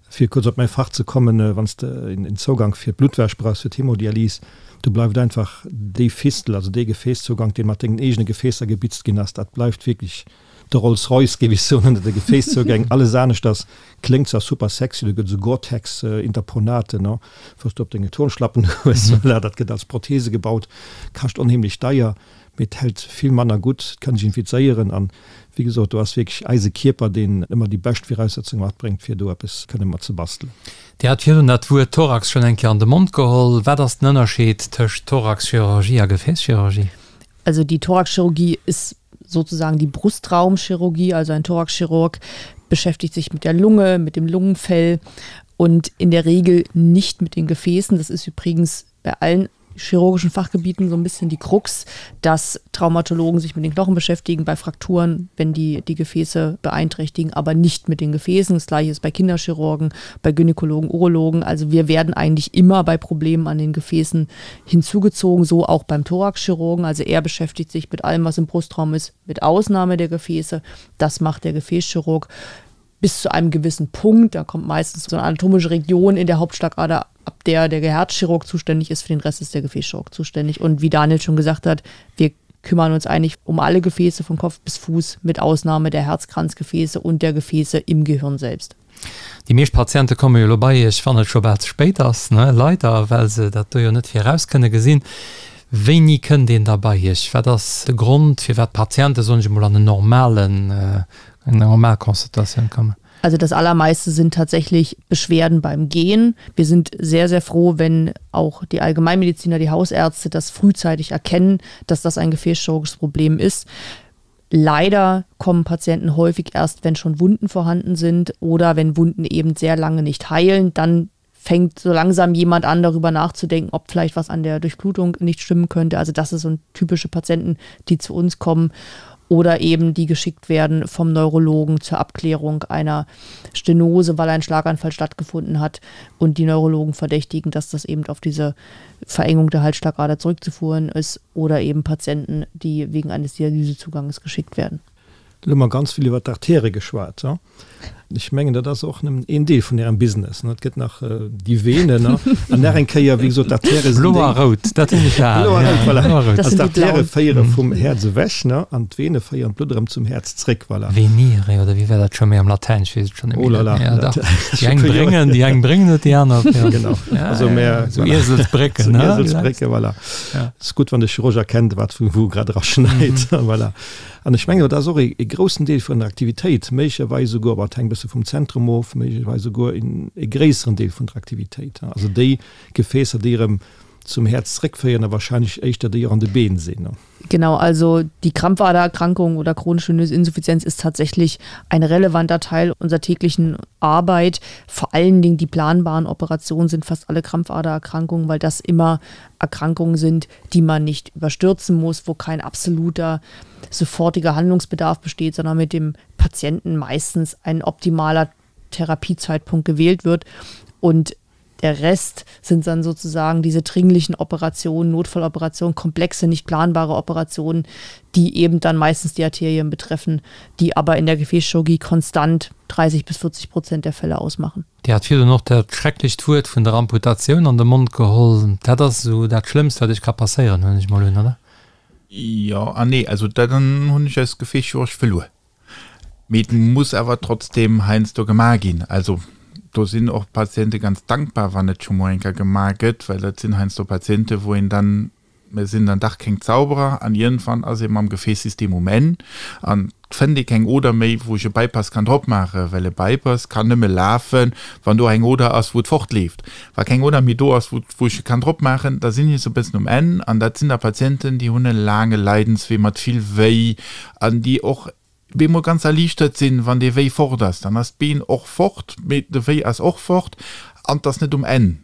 S3: Fir kuerz op mäi Fach ze kommen, wann s de en Zougank fir d'Bluttwäsch brauchs, fir d'Hemodialys, do bleift einfach déi Fistel, also dee Gefäässzougank, dee mat dengen eegene Gefäässer gebitzt ginn ass, dat bleift wierklech de Rolls Royce, géif ech soen, ënner de Gefääszougäng. Alles aneschters kléngt zwar super sexy, do gëtt esou Gore-Tex-Interponate, no, wou s de op denge Turnschlappen hues, voilà, dat gëtt als Prothese gebaut, kascht onheemlech deier. Mee et hält vill manner gutt, et kann sech infizéieren an, wéi gesot, do ass wierklech eise Kierper, deen ëmmer déi bescht Viraussetzunge matbréngt, fir do eppes kënne mat ze bastelen.
S2: Dir hat virdrun dat Wuert Thorax schonn eng Kéier an de Mond geholl. Wat ass den Ënnerscheed tëscht Thoraxchirurgie a Gefäßchirurgie?
S5: Also die Thoraxchirurgie ist sozusagen die Brustraumchirurgie, also ein Thoraxchirurg beschäftigt sich mit der Lunge, mit dem Lungenfell und in der Regel nicht mit den Gefäßen. Das ist übrigens bei allen chirurgischen Fachgebieten so ein bisschen die Krux, dass Traumatologen sich mit den Knochen beschäftigen bei Frakturen, wenn die die Gefäße beeinträchtigen, aber nicht mit den Gefäßen. Das gleiche ist bei Kinderchirurgen, bei Gynäkologen, Urologen. Also wir werden eigentlich immer bei Problemen an den Gefäßen hinzugezogen, so auch beim Thoraxchirurgen. Also er beschäftigt sich mit allem, was im Brustraum ist, mit Ausnahme der Gefäße. Das macht der Gefäßchirurg bis zu einem gewissen Punkt. Da kommt meistens so eine anatomische Region in der Hauptschlagader, ab der der Herzchirurg zuständig ist, für den Rest ist der Gefäßchirurg zuständig. Und wie Daniel schon gesagt hat, wir kümmern uns eigentlich um alle Gefäße von Kopf bis Fuß, mit Ausnahme der Herzkranzgefäße und der Gefäße im Gehirn selbst.
S2: Déi meescht Patiente komme jo elo bei Iech, wann et scho bal ze spéit ass, ne? Leider, well se dat do jo net viraus kënne gesinn. Wéini kënnt een da bei Iech? Wat ass de Grond, firwat d'Patiente, soen ech emol, an en normalen, eng normal Consultatioun kommen?
S5: Also das allermeiste sind tatsächlich Beschwerden beim Gehen. Wir sind sehr, sehr froh, wenn auch die Allgemeinmediziner, die Hausärzte das frühzeitig erkennen, dass das ein gefäßchirurgisches Problem ist. Leider kommen Patienten häufig erst, wenn schon Wunden vorhanden sind oder wenn Wunden eben sehr lange nicht heilen, dann fängt so langsam jemand an, darüber nachzudenken, ob vielleicht was an der Durchblutung nicht stimmen könnte. Also das ist so ein typische Patienten, die zu uns kommen oder eben die geschickt werden vom Neurologen zur Abklärung einer Stenose, weil ein Schlaganfall stattgefunden hat und die Neurologen verdächtigen, dass das eben auf diese Verengung der Halsschlagader zurückzuführen ist oder eben Patienten, die wegen eines Dialysezuganges geschickt werden.
S3: Lo hu mer ganz vill iwwer d'Artäre geschwat. Ech mengen, dat ass och nëmmen een Deel vun Ärem Business. Et gëtt nach déi Venen an nach eng Kéier, wéi gesot, d'Artäre sinn déi.
S2: Blo a rout, dat hunn ech
S3: erhalen. Blo a rout, voilà. Blo a rout. Also d'Artäre féiere vum Häerz ewech an d'Vene féieren d'Blutt erëm zum Häerz zréck,
S2: voilà. Venire, oder wéi war dat scho méi am Latäin? Ech weess et schonn net méi. Oh là là. Ja, dach. Déi eng bréngen, déi eng bréngen et, déi aner.
S3: Genau. Also
S2: mä. Sou Ieselsbrécken,
S3: ne? Ieselsbrécke, voilà. Et ass gutt, wann de Chirurg erkennt, wat vu wou grad eraschneit, voilà. An ech mengen, dat ass och e groussen Deel vun der Aktivitéit, méiglecherweis esouguer, bon, et hänkt e bësse vum Zentrum of, méiglecherweis esouguer e gréisseren Deel vun der Aktivitéit. Also déi Gefäässer, déi erëm zum Häerz zréckféieren a wahrscheinlech éischter déi och an de Been sinn.
S5: Genau, also die Krampfadererkrankung oder chronische venöse Insuffizienz ist tatsächlich ein relevanter Teil unserer täglichen Arbeit. Vor allen Dingen die planbaren Operationen sind fast alle Krampfadererkrankungen, weil das immer Erkrankungen sind, die man nicht überstürzen muss, wo kein absoluter sofortiger Handlungsbedarf besteht, sondern mit dem Patienten meistens ein optimaler Therapiezeitpunkt gewählt wird. Und der Rest sind dann sozusagen diese dringlichen Operationen, Notfalloperationen, komplexe, nicht planbare Operationen, die eben dann meistens die Arterien betreffen, die aber in der Gefäßchirurgie konstant 30 bis 40 Prozent der Fälle ausmachen.
S2: Dir hat virdrun och dat schrecklecht Wuert vun der Amputatioun an de Mond geholl. Dat ass esou dat Schlëmmst, wat Iech ka passéieren, huelen ech mol un, oder?
S4: Jo an nee. Also dat hunn ech als Gefäßchirurg verluer. Mee et muss awer trotzdem heiansdo gemaach ginn. Also do sinn och d'Patiente ganz dankbar, wann et scho mol eng Kéier gemaach gëtt, well dat sinn heiansdo Patiente wou een dann Mir sinn dann dach keng Zauberer an iergendwann ass ee mam Gefäßsystem um Enn an et fënnt ee keng Oder méi, wou ech e Bypass kann drop maachen, well e Bypass kann nëmme lafen, wann do eng Oder ass, wou et fortleeft. Wa keng Oder méi do ass, wou ech e kann drop maachen, da sinn ech esou e bëssen um Enn an dat sinn da Patienten, déi hunn e laange Leidenswee mat vill Wéi an déi och bemol ganz erliichtert sinn, wann dee Wéi fort ass. Dann ass d'Been och fort, mee de Wéi ass och fort an 't ass net um Enn.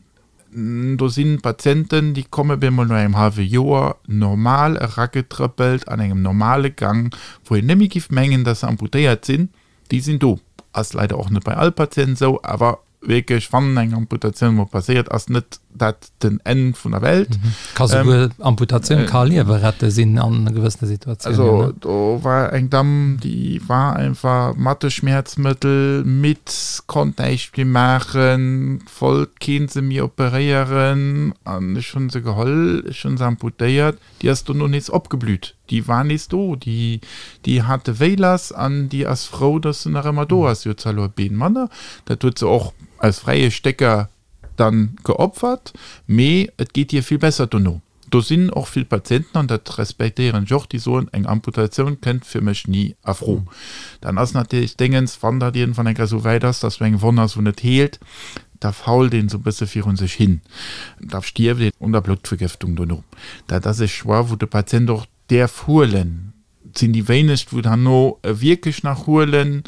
S4: Do sinn Patienten, déi komme bemol no engem hallwe Joer normal eragetrëppelt an engem normale Gang, wou een net méi giff mengen, dass se amputéiert sinn. Déi sinn do. Ass leider och net bei all Patient esou, awer wierklech, wann eng Amputatioun emol passéiert, ass net dat den Enn vun der Welt.
S2: Ka souguer Amputatioun ka Liewe rette sinn an gewëssene Situatiounen.
S4: Also do war eng Damm, déi war einfach mat de Schmäerzmëttel midd, konnt näischt méi maachen, wollt keen se méi operéieren an ech hunn se geholl, ech hunn se amputéiert, déi ass dono nees opgeblüht, déi war nees do, déi déi hat de Wéi lass an déi ass frou, dass se nach ëmmer do ass. Si huet zwar elo e Been manner, dat huet se och aus fräie Stécker dann geopfert, mee et geet hir vill besser dono. Do sinn och vill Patienten, an dat respektéieren ech och, déi soen, eng Amputatioun kënnt fir mech ni a Fro. Dann ass natierlech d'Déngens, wann dat iergendwann eng Kéier esou wäit ass, dass do eng Wonn ass, wou net heelt, da fault een esou e bësse virun sech hin, da stierft een un der Bluttvergëftung dono. Dat ass e Choix, wou de Patient och däerf huelen. Et sinn déi wéinegst, wou et herno wierklech nach huelen,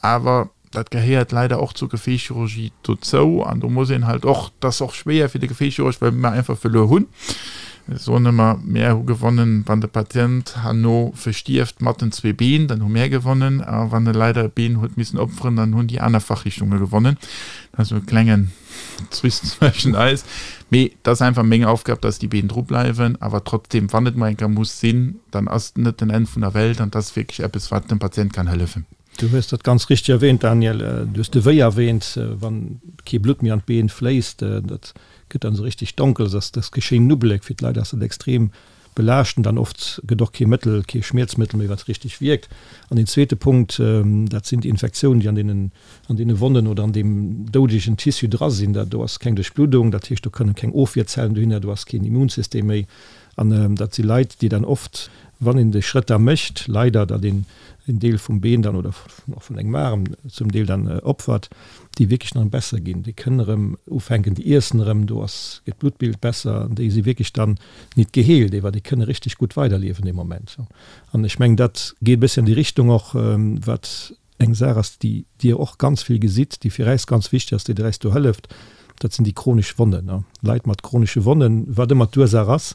S4: awer dat gehéiert leider och zur Gefäßchirurgie dozou an do muss een halt och, dat ass och schwéier fir de Gefäßchirurg, well mer einfach verluer hunn. Ech soen ëmmer, Mär hu gewonnen, wann de Patient herno verstierft mat den zwee Been, dann hu mär gewonnen, a wann e leider e Been huet missen opferen, dann hunn déi aner Fachrichtunge gewonnen. Dat ass esou e klengen Zwist zwëschen eis. Mee et ass einfach meng Aufgab, dass déi Been dru bleiwen. Awer trotzdem, wann et mol eng Kéier muss sinn, dann ass et net den Enn vun der Welt an et ass wierklech eppes, wat dem Patient kann hëllefen.
S3: Du hues dat ganz richteg erwähnt, Daniel. Du hues de Wéi erwähnt, wann kee Blutt méi an d'Been fléisst, dat gëtt dann esou richtig donkel, dass dat geschéin Nubbelek. Fir d'Leit ass dat extrem belaaschtend an oft gëtt och kee Mëttel, kee Schmierzmëttel méi, wat richteg wierkt. An deen zweete Punkt, dat sinn déi Infektiounen, déi an deenen, an deene Wonnen oder an deem doudegen Tissu dra sinn. Dat do ass keng Duerchbluddung, dat heescht, do kënnen keng Ofwierzellen dohinner, do ass keen Immunsystem méi. An dat si Leit, déi dann oft, wann een de Schrëtt da mécht, leider, datt een en Deel vum Been dann oder och vun engem Aarm zum Deel dann opfert, déi wierklech dann besser ginn. Déi kënnen erëm ufänken, déi iessen erëm, do ass, gëtt d'Bluttbild besser an déi si wierklech dann nit geheelt, ewer déi kënne richteg gutt weiderliewen dee Moment. An ech mengen, dat geet e bëssi an déi Richtung och, wat eng Saach ass, déi Dir och ganz vill gesitt, déi fir äis ganz wichteg ass, déi der äis do hëlleft, dat sinn déi chronesch Wonnen. Leit mat chronesche Wonnen, wat ëmmer d'Ursaach ass,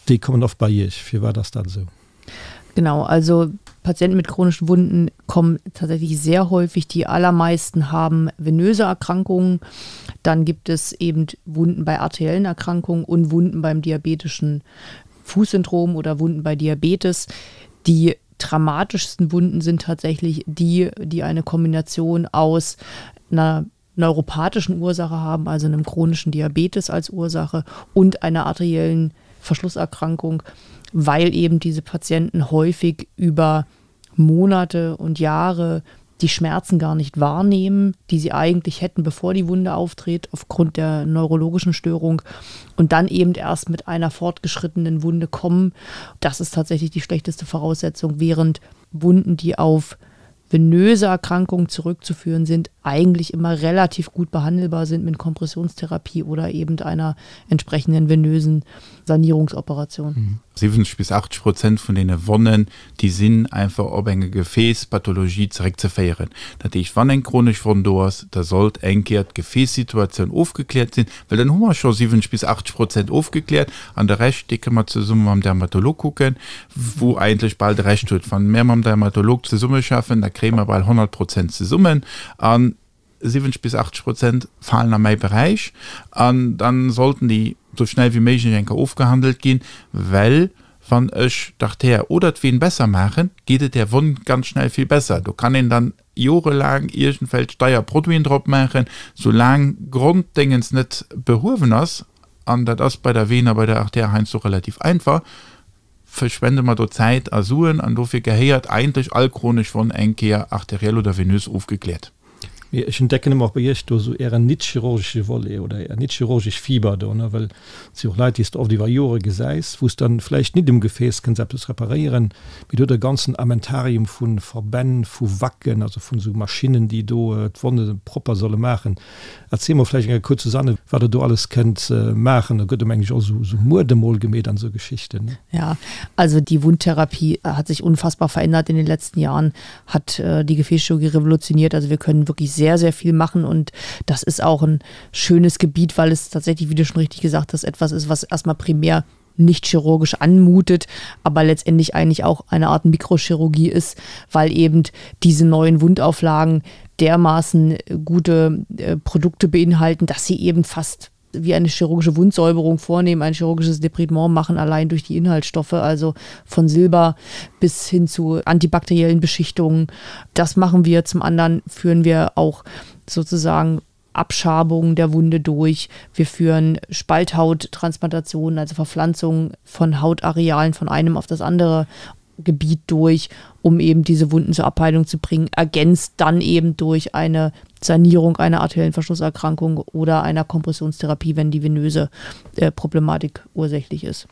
S3: déi kommen oft bei Iech. Firwat ass dat esou?
S5: Genau, also Patienten mit chronischen Wunden kommen tatsächlich sehr häufig. Die allermeisten haben venöse Erkrankungen. Dann gibt es eben Wunden bei arteriellen Erkrankungen und Wunden beim diabetischen Fußsyndrom oder Wunden bei Diabetes. Die dramatischsten Wunden sind tatsächlich die, die eine Kombination aus einer neuropathischen Ursache haben, also einem chronischen Diabetes als Ursache und einer arteriellen Verschlusserkrankung, weil eben diese Patienten häufig über Monate und Jahre die Schmerzen gar nicht wahrnehmen, die sie eigentlich hätten, bevor die Wunde auftritt, aufgrund der neurologischen Störung und dann eben erst mit einer fortgeschrittenen Wunde kommen. Das ist tatsächlich die schlechteste Voraussetzung, während Wunden, die auf venöse Erkrankungen zurückzuführen sind, eigentlich immer relativ gut behandelbar sind mit Kompressionstherapie oder eben einer entsprechenden venösen Sanierungsoperation.
S4: 70 bis 80 Prozent vun deene Wonnen, déi sinn einfach op eng Gefäässpathologie zeréckzeféieren. Dat heescht, wann eng chronesch Wonn do ass, da sollt eng Kéier d'Gefäässituatioun ofgekläert sinn, well dann hu mer scho 70 bis 80 Prozent ofgekläert an de Rescht, dee kënne mer zesumme mam Dermatolog kucken, wou eigentlech bal de Rescht huet. Wann mär mam Dermatolog zesummeschaffen, da kréie mer bal 100 Prozent zesummen an 70 bis 80 Prozent falen a mäi Beräich an dann sollten déi sou schnell wéi méiglech eng Kéier ofgehandelt ginn, well wann ech d'Artär oder d'Veen besser maachen, geet et där Wonn ganz schnell vill besser. Do kann een dann jorelaang iergendwelch deier Produiten drop maachen, soulaang Gronddéngens net behuewen ass, an dat ass bei der Veen a bei der Artär heiansdo relativ einfach, verschwende mer do Zäit a Suen an dofir gehéiert eigentlech all chronesch Wonn eng Kéier arteriell oder venös ofgekläert.
S3: Mee ech entdecken ëmmer och bei Iech do esou Ären nit-chirurgesche Volet oder Är nit-chirurgesch Fiber do, ne, well et si och Leit, déi s de oft iwwer Jore gesäis, wou s dann vläicht nit um Gefääss kënns eppes reparéieren, mee do huet e ganzen Armentarium vu Verbänn, vu Wacken, also vun esou Maschinnen, déi do d'Wonne propper solle maachen. Erziel mol vläicht eng Kéier kuerz, Susanne, wat Der do alles kënnt maachen. Do gëtt, meng ech, och esou Muerde mol gemeet an esou Geschichten, ne?
S5: Ja, also die Wundtherapie hat sich unfassbar verändert in den letzten Jahren, hat die Gefäßchirurgie revolutioniert. Also wir können wirklich sehr, sehr viel machen und das ist auch ein schönes Gebiet, weil es tatsächlich, wie du schon richtig gesagt hast, etwas ist, was erstmal primär nicht chirurgisch anmutet, aber letztendlich eigentlich auch eine Art Mikrochirurgie ist, weil eben diese neuen Wundauflagen dermaßen gute äh, Produkte beinhalten, dass sie eben fast wie eine chirurgische Wundsäuberung vornehmen, ein chirurgisches Depridement machen, allein durch die Inhaltsstoffe, also von Silber bis hin zu antibakteriellen Beschichtungen. Das machen wir. Zum anderen führen wir auch sozusagen Abschabungen der Wunde durch. Wir führen Spalthauttransplantationen, also Verpflanzungen von Hautarealen von einem auf das andere Gebiet durch, um eben diese Wunden zur Abheilung zu bringen, ergänzt dann eben durch eine Sanierung einer arteriellen Verschlusserkrankung oder einer Kompressionstherapie, wenn die venöse äh, Problematik ursächlich ist.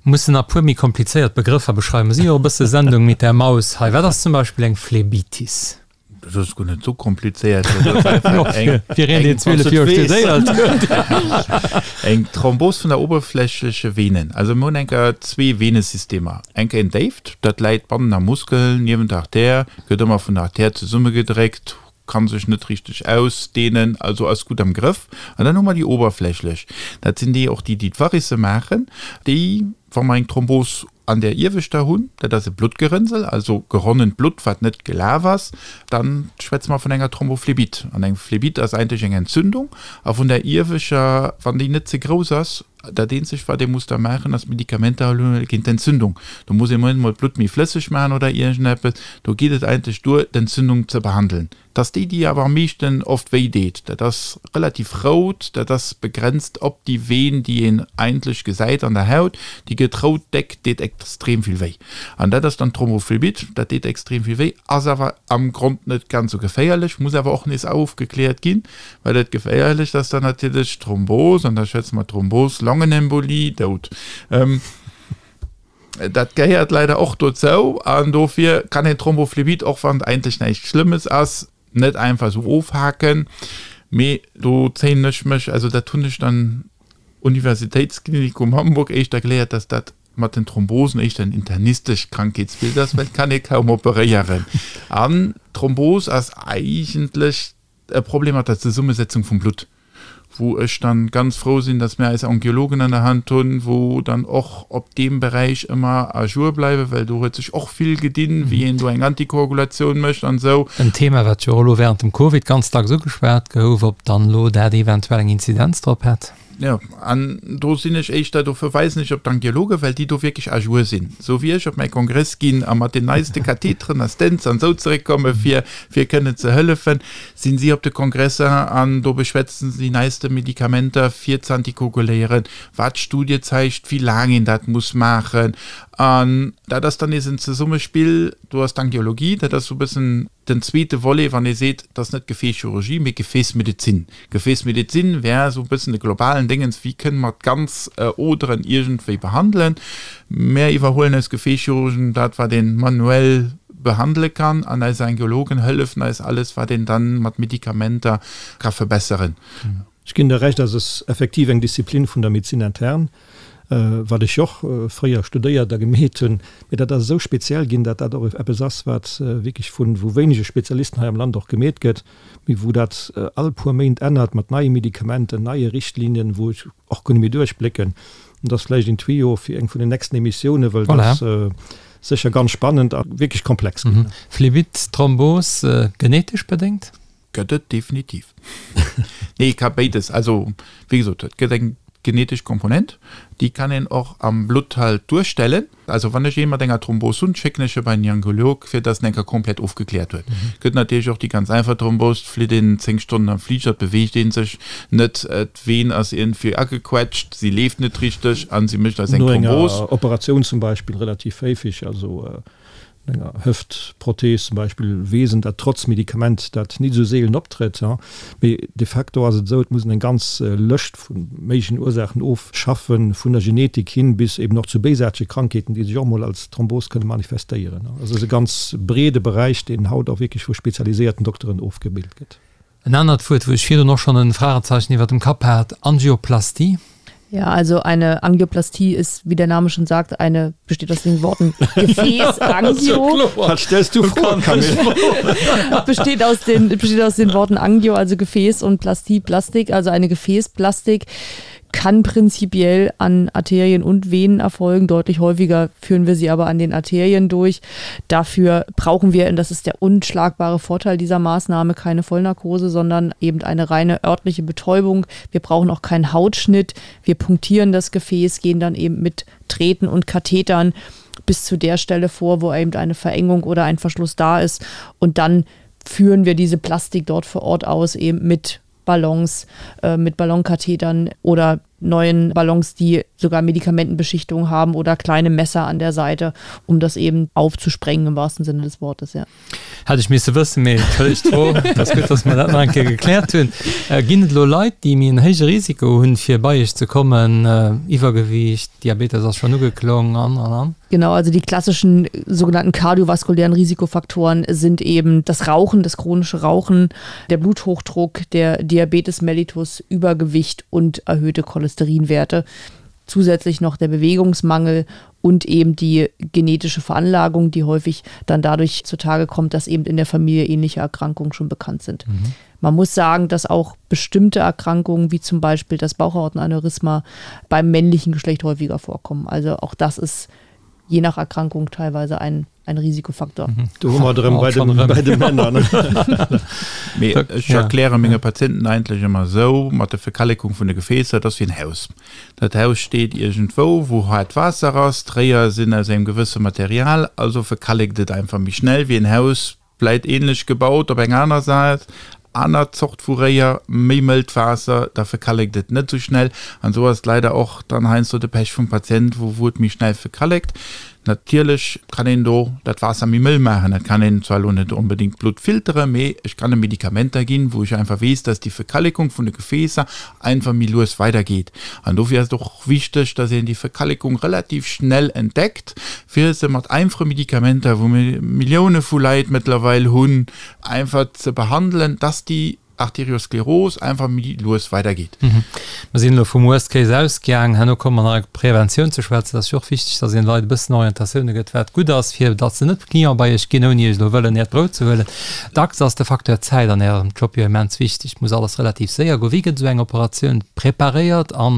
S2: Mussen nach puer méi komplizéiert Begrëffer beschreiwen. Mir si jo e bësse Sendung mit der Maus hei. Wat ass zum Beispill eng Phlebitis?
S4: Dat ass guer net esou komplizéiert.
S2: Fir een, deen 12 Joer studéiert huet.
S4: Eng Thrombos vun der oberflächleche Venen. Also mir hunn eng Kéier zwee Venesystemer. Eng Kéier en déift, dat läit bannen am Muskel, niewent der Artär, gëtt ëmmer vun der Artär zesummegedréckt, kann sech net richteg ausdehnen, also ass gutt am Grëff. An dann hu mer déi oberflächlech, dat sinn déi och déi, déi d'Varicë maachen, déi, wa mer eng Thrombos an där ieweschter hunn, dat ass e Bluttgerënnsel, also geronnent Blutt, wat net gelaf ass, dann schwätze mer vun enger Thrombophlebite. An eng Phlebite ass eigentlech eng Entzündung. A vun där iewescher, wann déi net ze grouss ass, dat eenzegt, wat ee muss da maachen, ass Medikamenter huelen géint d'Entzündung. Do muss een emol d'Blutt méi flësseg maachen oder iergendeppes. Do geet et eigentlech duer, d'Entzündung ze behandeln. Dat ass déi, déi awer am meeschten oft wéi deet. Dat ass relativ rout, dat ass begrenzt op déi Veen, déi een eigentlech gesäit an der Haut. Déi gëtt rout, déck, deet extrem vill wéi. An dat ass dann d'Thrombophlebitt, dat deet extrem vill wéi, ass awer am Grond net ganz esou geféierlech, muss awer och nees ofgekläert ginn, well dat Geféierlecht ass dann natierlech d'Thrombos, an da schwätze mer Thrombos longue. Longenembolie, dout. Dat gehéiert leider och dozou an dofir kann een Thrombophlebit, och wann et eigentlech näischt Schlëmmes ass, net einfach esou ofhaken. Mee do zéien ech mech, also dat hunn ech dann Universitätsklinikum Hamburg éischter geléiert, dass dat mat den Thrombosen éischter en internistescht Krankheetsbild ass, well et kann ee kaum operéieren. An d'Thrombos ass eigentlech e Problem mat der Zesummesetzung vum Blutt, wou ech dann ganz frou sinn, dass mir eis Angiologen an der Hand hunn, wou dann och op deem Beräich ëmmer à jour bleiwen, well do huet sech och vill gedinn, wéi een do eng Antikoagulatioun mécht an esou.
S2: En Thema, wat jo och elo während dem Covid ganz dacks ugeschwat gouf, ob dann elo dat eventuell eng Inzidenz drop hätt.
S4: Jo, an do sinn ech éischter, do verweisen ech op d'Angiologen, well déi do wierklech à jour sinn. Esou wéi ech op mäi Kongress ginn a mat den neiste Katheteren a Stents an esou zeréckkomme fir, fir kënnen ze hëllefen, sinn si op de Kongresser an do beschwätzen se déi neiste Medikamenter fir z'antikoaguléieren, wat d'Studie zeigt, wéi laang een dat muss maachen. An dat ass dann nees en Zesummespill, do ass d'Angiologie, dat ass esou e bëssen Den zweete Volet, wann ee seet, dat ass net Gefäßchirurgie, mee Gefäßmedezin. Gefäßmedezin wär esou e bëssen de globalen Déngens, wéi kënne mer d'ganz Oderen iergendwéi behandelen. Mär iwwerhuelen eis Gefäßchirurgen dat, wat ee manuell behandele kann, an eis Angiologen hëllefen eis alles, wat een dann mat Medikamenter ka verbesseren.
S3: Ech ginn der Recht, dass es effektiv eng Disziplin vun der Médecine interne, wat ech jo och fréier studéiert a gemeet hunn, mee dat ass esou speziell ginn, dat dat och eppes ass, wat wierklech vu vu wéinege Spezialisten hei am Land och gemeet gëtt, mee wou dat all puer Méint ännert mat neie Medikamenten, neie Richtlinien, wou ech och guer net méi duerchblécken. An dat ass vläicht een Tuyau fir eng vun den nächsten Emissiounen, well dat ass sécher ganz spannend a wierklech komplex
S2: ginn. Phlebit, Thrombos, genetesch bedéngt?
S4: Gëtt et definitiv. Nee, ka béides. Also, wéi gesot, et gëtt eng genetesch Komponent, déi kann een och am Blutt halt duerstellen. Also wann ech ee mat enger Thrombos hunn, schécken ech e bei den Angiolog, fir dass en eng Kéier komplett ofgekläert huet. Gëtt natierlech och déi ganz einfach Thrombos, flitt een 10 Stonnen am Fliger, et beweegt ee sech net, d'Veen ass iergendwéi agequetscht, si leeft net richteg a si mécht eis eng
S3: No enger Thrombos. Operatioun zum Beispill relativ héifig, also enger Hëftprothees zum Beispill, weess en, dat trotz Medikament dat nit esou seelen optrëtt. Mee de facto ass et esou, et muss een eng ganz Lëscht vu méiglechen Ursaachen ofschaffen, vun der Genetik hin bis eben och zu béisaartege Krankheeten, déi sech och mol als Thrombos kënne manifestéieren. Also et ass e ganz breede Beräich, deen haut och wierklech vu spezialiséierten Dokteren ofgebilt gëtt.
S2: En anert Wuert, wou ech virdrun och schonn en Fragezeichen iwwer dem Kapp hat, Angioplastie.
S5: Ja, also eine Angioplastie ist, wie der Name schon sagt, eine, besteht aus den Worten Gefäß, Angio.
S3: Was stellst du Froen, Camille?
S5: Besteht aus den, besteht aus den Worten Angio, also Gefäß und Plastie, Plastik, also eine Gefäßplastik kann prinzipiell an Arterien und Venen erfolgen. Deutlich häufiger führen wir sie aber an den Arterien durch. Dafür brauchen wir, und das ist der unschlagbare Vorteil dieser Maßnahme, keine Vollnarkose, sondern eben eine reine örtliche Betäubung. Wir brauchen auch keinen Hautschnitt. Wir punktieren das Gefäß, gehen dann eben mit Treten und Kathetern bis zu der Stelle vor, wo eben eine Verengung oder ein Verschluss da ist. Und dann führen wir diese Plastik dort vor Ort aus, eben mit Ballons, äh, mit Ballonkathetern oder neuen Ballons, die sogar Medikamentenbeschichtung haben oder kleine Messer an der Seite, um das eben aufzusprengen im wahrsten Sinne des Wortes. Ja.
S2: Hätt ech misse wëssen, mee entschëllegt d'Fro. Et ass gutt, dass mer dat nach eng Kéier gekläert hunn. Ginn et elo Leit, déi méi en héije Risiko hunn, fir bei Iech ze kommen? Iwwergewiicht, Diabetes ass schonn ugeklong an, an, an.
S5: Genau, also die klassischen sogenannten kardiovaskulären Risikofaktoren sind eben das Rauchen, das chronische Rauchen, der Bluthochdruck, der Diabetes mellitus, Übergewicht und erhöhte Cholesterinwerte. Zusätzlich noch der Bewegungsmangel und eben die genetische Veranlagung, die häufig dann dadurch zutage kommt, dass eben in der Familie ähnliche Erkrankungen schon bekannt sind. Mhm. Man muss sagen, dass auch bestimmte Erkrankungen, wie zum Beispiel das Bauchhautenaneurysma, beim männlichen Geschlecht häufiger vorkommen. Also auch das ist je nach Erkrankung teilweise ein, ein Risikofaktor. Mhm.
S3: Du hu mer drëm bei de, bei de Männer.
S4: Mee ech erkläre menge Patienten eigentlech ëmmer esou, mat der Verkallekung vun de Gefäässer, dat ass wéi en Haus. Dat Haus steet iergendwou, wou haart Waasser ass, d'Réier sinn aus engem gewësse Material, also verkallekt et einfach méi schnell wéi en Haus, vläit ähnlech gebaut op eng aner Säit, aner Zort vu Réier, méi mëllt Waasser, da verkallekt et net esou schnell. An esou ass et leider och dann heiansdo de Pech vum Patient, wou wou et méi schnell verkallekt. Natierlech kann een do dat Waasser méi mëll maachen. Dat kann een zwar elo net onbedéngt d'Blutt filteren, mee ech kann em Medikamenter ginn, wou ech einfach weess, dass déi Verkallekung vun de Gefäässer einfach méi lues weidergeet. An dofir ass et och wichteg, dass een déi Verkallekung relativ schnell entdeckt, fir se mat einfache Medikamenter, wou mir Millioune vu Leit mëttlerweil hunn, einfach ze behandelen, dass déi Arterioskleros einfach méi lues weidergeet.
S2: Mer sinn elo vum Worst Case ausgaang. Herno komme mer nach op Preventioun ze schwätzen. Et ass jo och wichteg, dass een de Leit e bëssen Orientatioune gëtt, wat gutt ass, fir datt se net Client bei iech ginn, ouni iech elo wëllen äert Brout ze huelen. Dacks ass de Facteur Zäit an ärem Job jo immens wichteg. Et muss alles relativ séier goen. Wéi gëtt esou eng Operatioun preparéiert a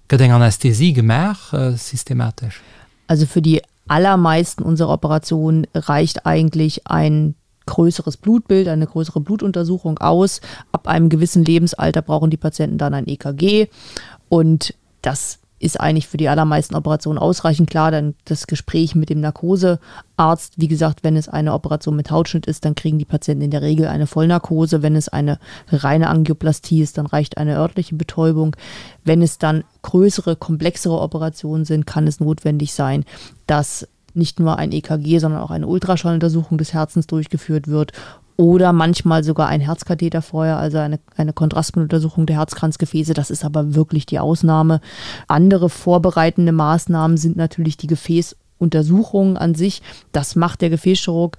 S2: gëtt eng Anästhesie gemaach systematesch?
S5: Also für die allermeisten unserer Operationen reicht eigentlich ein größeres Blutbild, eine größere Blutuntersuchung aus. Ab einem gewissen Lebensalter brauchen die Patienten dann ein EKG und das ist eigentlich für die allermeisten Operationen ausreichend klar. Dann das Gespräch mit dem Narkosearzt, wie gesagt, wenn es eine Operation mit Hautschnitt ist, dann kriegen die Patienten in der Regel eine Vollnarkose. Wenn es eine reine Angioplastie ist, dann reicht eine örtliche Betäubung. Wenn es dann größere, komplexere Operationen sind, kann es notwendig sein, dass nicht nur ein EKG, sondern auch eine Ultraschalluntersuchung des Herzens durchgeführt wird oder manchmal sogar ein Herzkatheter vorher, also eine, eine Kontrastmitteluntersuchung der Herzkranzgefäße. Das ist aber wirklich die Ausnahme. Andere vorbereitende Maßnahmen sind natürlich die Gefäßuntersuchungen an sich. Das macht der Gefäßchirurg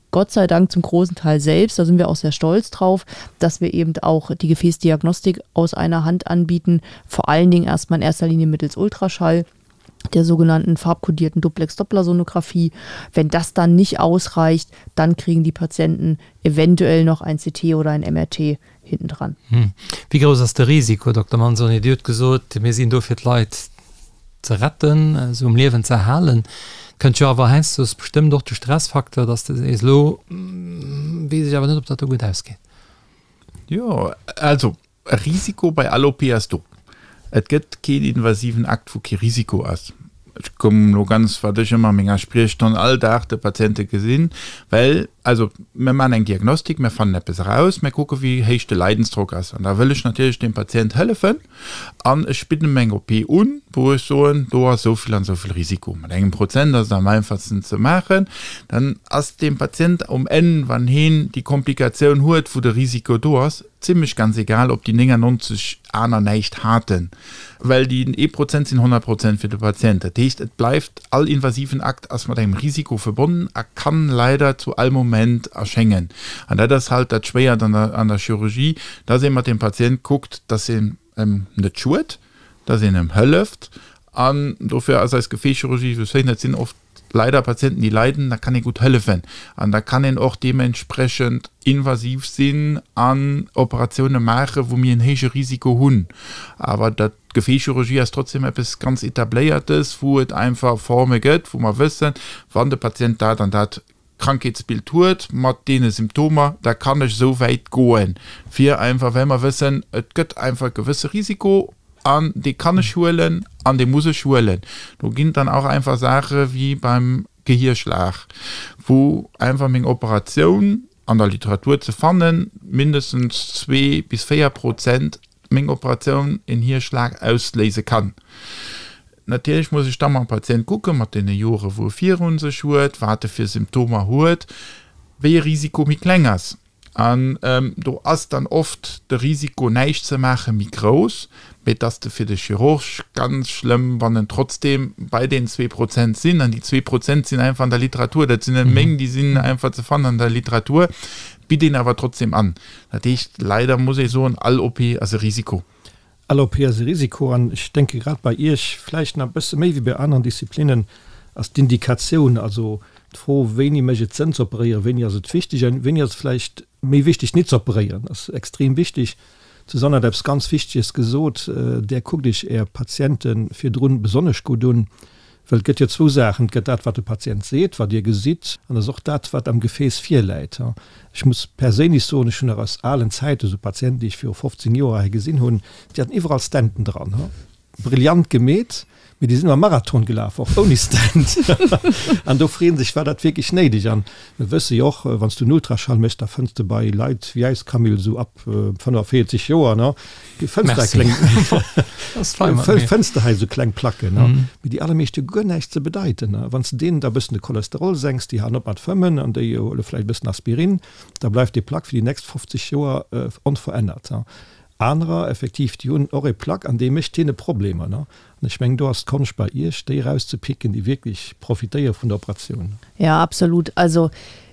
S5: Gott sei Dank zum großen Teil selbst. Da sind wir auch sehr stolz drauf, dass wir eben auch die Gefäßdiagnostik aus einer Hand anbieten. Vor allen Dingen erstmal in erster Linie mittels Ultraschall der sogenannten farbkodierten Duplex-Dopplersonographie. Wenn das dann nicht ausreicht, dann kriegen die Patienten eventuell noch ein CT oder ein MRT hinten dran.
S2: Hm. Wéi grouss ass de Risiko, Dokter Manzoni? Dir hutt gesot, mir sinn do fir d'Leit ze retten, se um Liewen ze erhalen. Kënnt jo awer heiansdo bestëmmt och de Stressfaktor, dass de sees, elo weess ech awer net, ob dat do gutt ausgeet.
S4: Jo, also E Risiko bei all OP ass do. Et gëtt keen invasiven Akt, wou kee Risiko ass. Ech kommen elo ganz, wat ech ëmmer a menger Spriechstonn all Dag de Patiente gesinn, well, also mir maachen eng Diagnostik, mir fannen eppes eraus, mir kucke wéi héich de Leidensdrock ass an da wëll ech natierlech dem Patient hëllefen an ech bidden em eng OP un, wou ech soen, do ass esou vill an esou vill Risiko. Mat engem Prozent ass et am einfachsten ze maachen. Dann ass dem Patient um Enn, wann heen déi Komplikatioun huet, wou de Risiko do ass, Zimlech ganz egal, ob déi 99 aner näischt haten, well déi ee Prozent sinn 100 Prozent fir de Patient. Dat heescht, et bleift, all invasiven Akt ass mat engem Risiko verbonnen a kann leider zu all Moment erschéngen. An dat ass halt dat Schwéiert an der, an der Chirurgie, dass ee mat dem Patient kuckt, dass een em net schued, dass een em hëlleft. An dofir ass eis Gefäßchirurgie esou schéin, dat sinn oft leider Patienten, déi leiden, da kann ee gutt hëllefen an da kann een och deementsprechend invasiv sinn an Operatioune maachen, wou mir en héije Risiko hunn. Awer dat, d'Gefäßchirurgie ass trotzdem eppes ganz Etabléiertes, wou et einfach Forme gëtt, wou mer wëssen, wann de Patient dat an dat Krankheetsbild huet mat deene Symptomer, da kann ech esou wäit goen, fir einfach, well mer wëssen, et gëtt einfach e gewësse Risiko an dee kann ech huelen an dee muss ech huelen. Do ginn et dann auch einfach Saache wéi beim Gehierschlag, wou einfach meng Operatioun an der Literatur ze fannen, mindestens zwee bis 4 Prozent meng Operatioun en Hierschlag ausléise kann. Natierlech muss ech da mam Patient kucken, mat deene Jore wou e virun sech huet, wat e fir Symptomer huet, wéi e Risiko méi kleng ass. An do ass dann oft de Risiko näischt ze maache méi grouss, mee et ass de fir de Chirurg ganz schlëmm, wann en trotzdeem bei den 2% sinn. An déi 2% sinn einfach an der Literatur, dat sinn net meng, déi sinn einfach ze fannen an der Literatur, bitt een awer trotzdeem an. Dat heescht, leider muss ee soen, all OP ass e Risiko.
S3: All OP ass e Risiko an ech denke grad bei Iech vläicht nach e bësse méi wéi bei aneren Disziplinnen ass d'Indikatioun, also d'Fro wéini mécht et Sënn ze operéieren, wéini ass et wichteg an wéini ass et vläicht méi wichteg nit ze operéieren, ass extrem wichteg. D'Susanne hat eppes ganz Wichteges gesot, Där kuckt Iech Är Patiente virdrun besonnesch gutt un, Well et gëtt jo zwou Saachen, Et gëtt dat, wat de Patient seet, wat Dir gesitt, an et ass och dat, wat am Gefääss virläit. Ech muss perséinlech soen, ech hunn nach aus alen Zäiten esou Patienten, déi ech viru 15 Joer hei gesinn hunn, déi haten iwwerall Stenten dran. Brillant gemeet, Mee déi sinn ëmmer Marathon gelaf, och ouni Stent. An do freeën sech, war dat wierklech néideg? An mir wësse jo och, wann s du en Ultraschall méchs, da fënns de bei Leit wéi eis, Camille, esou ab 45 Joer, ne, fënns de kleng, fënns de hei esou kleng Placken, ne, mee déi allermeescht hu guer näischt ze bedeiten. A wann s de deenen da e bëssen de Cholesterol senks, déi halen op mat fëmmen an déi huele vläicht e bëssen Aspirin, da bleift déi Plack fir déi nächst 50 Joer onverännert. Anerer effektiv, déi hunn och e Plaque an dee mécht hinne Problemer. Ne? An ech mengen, do ass d'Konscht bei Iech, déi erauszepicken, déi wierklech profitéiere vun der Operatioun.
S5: Ja, absolut. Also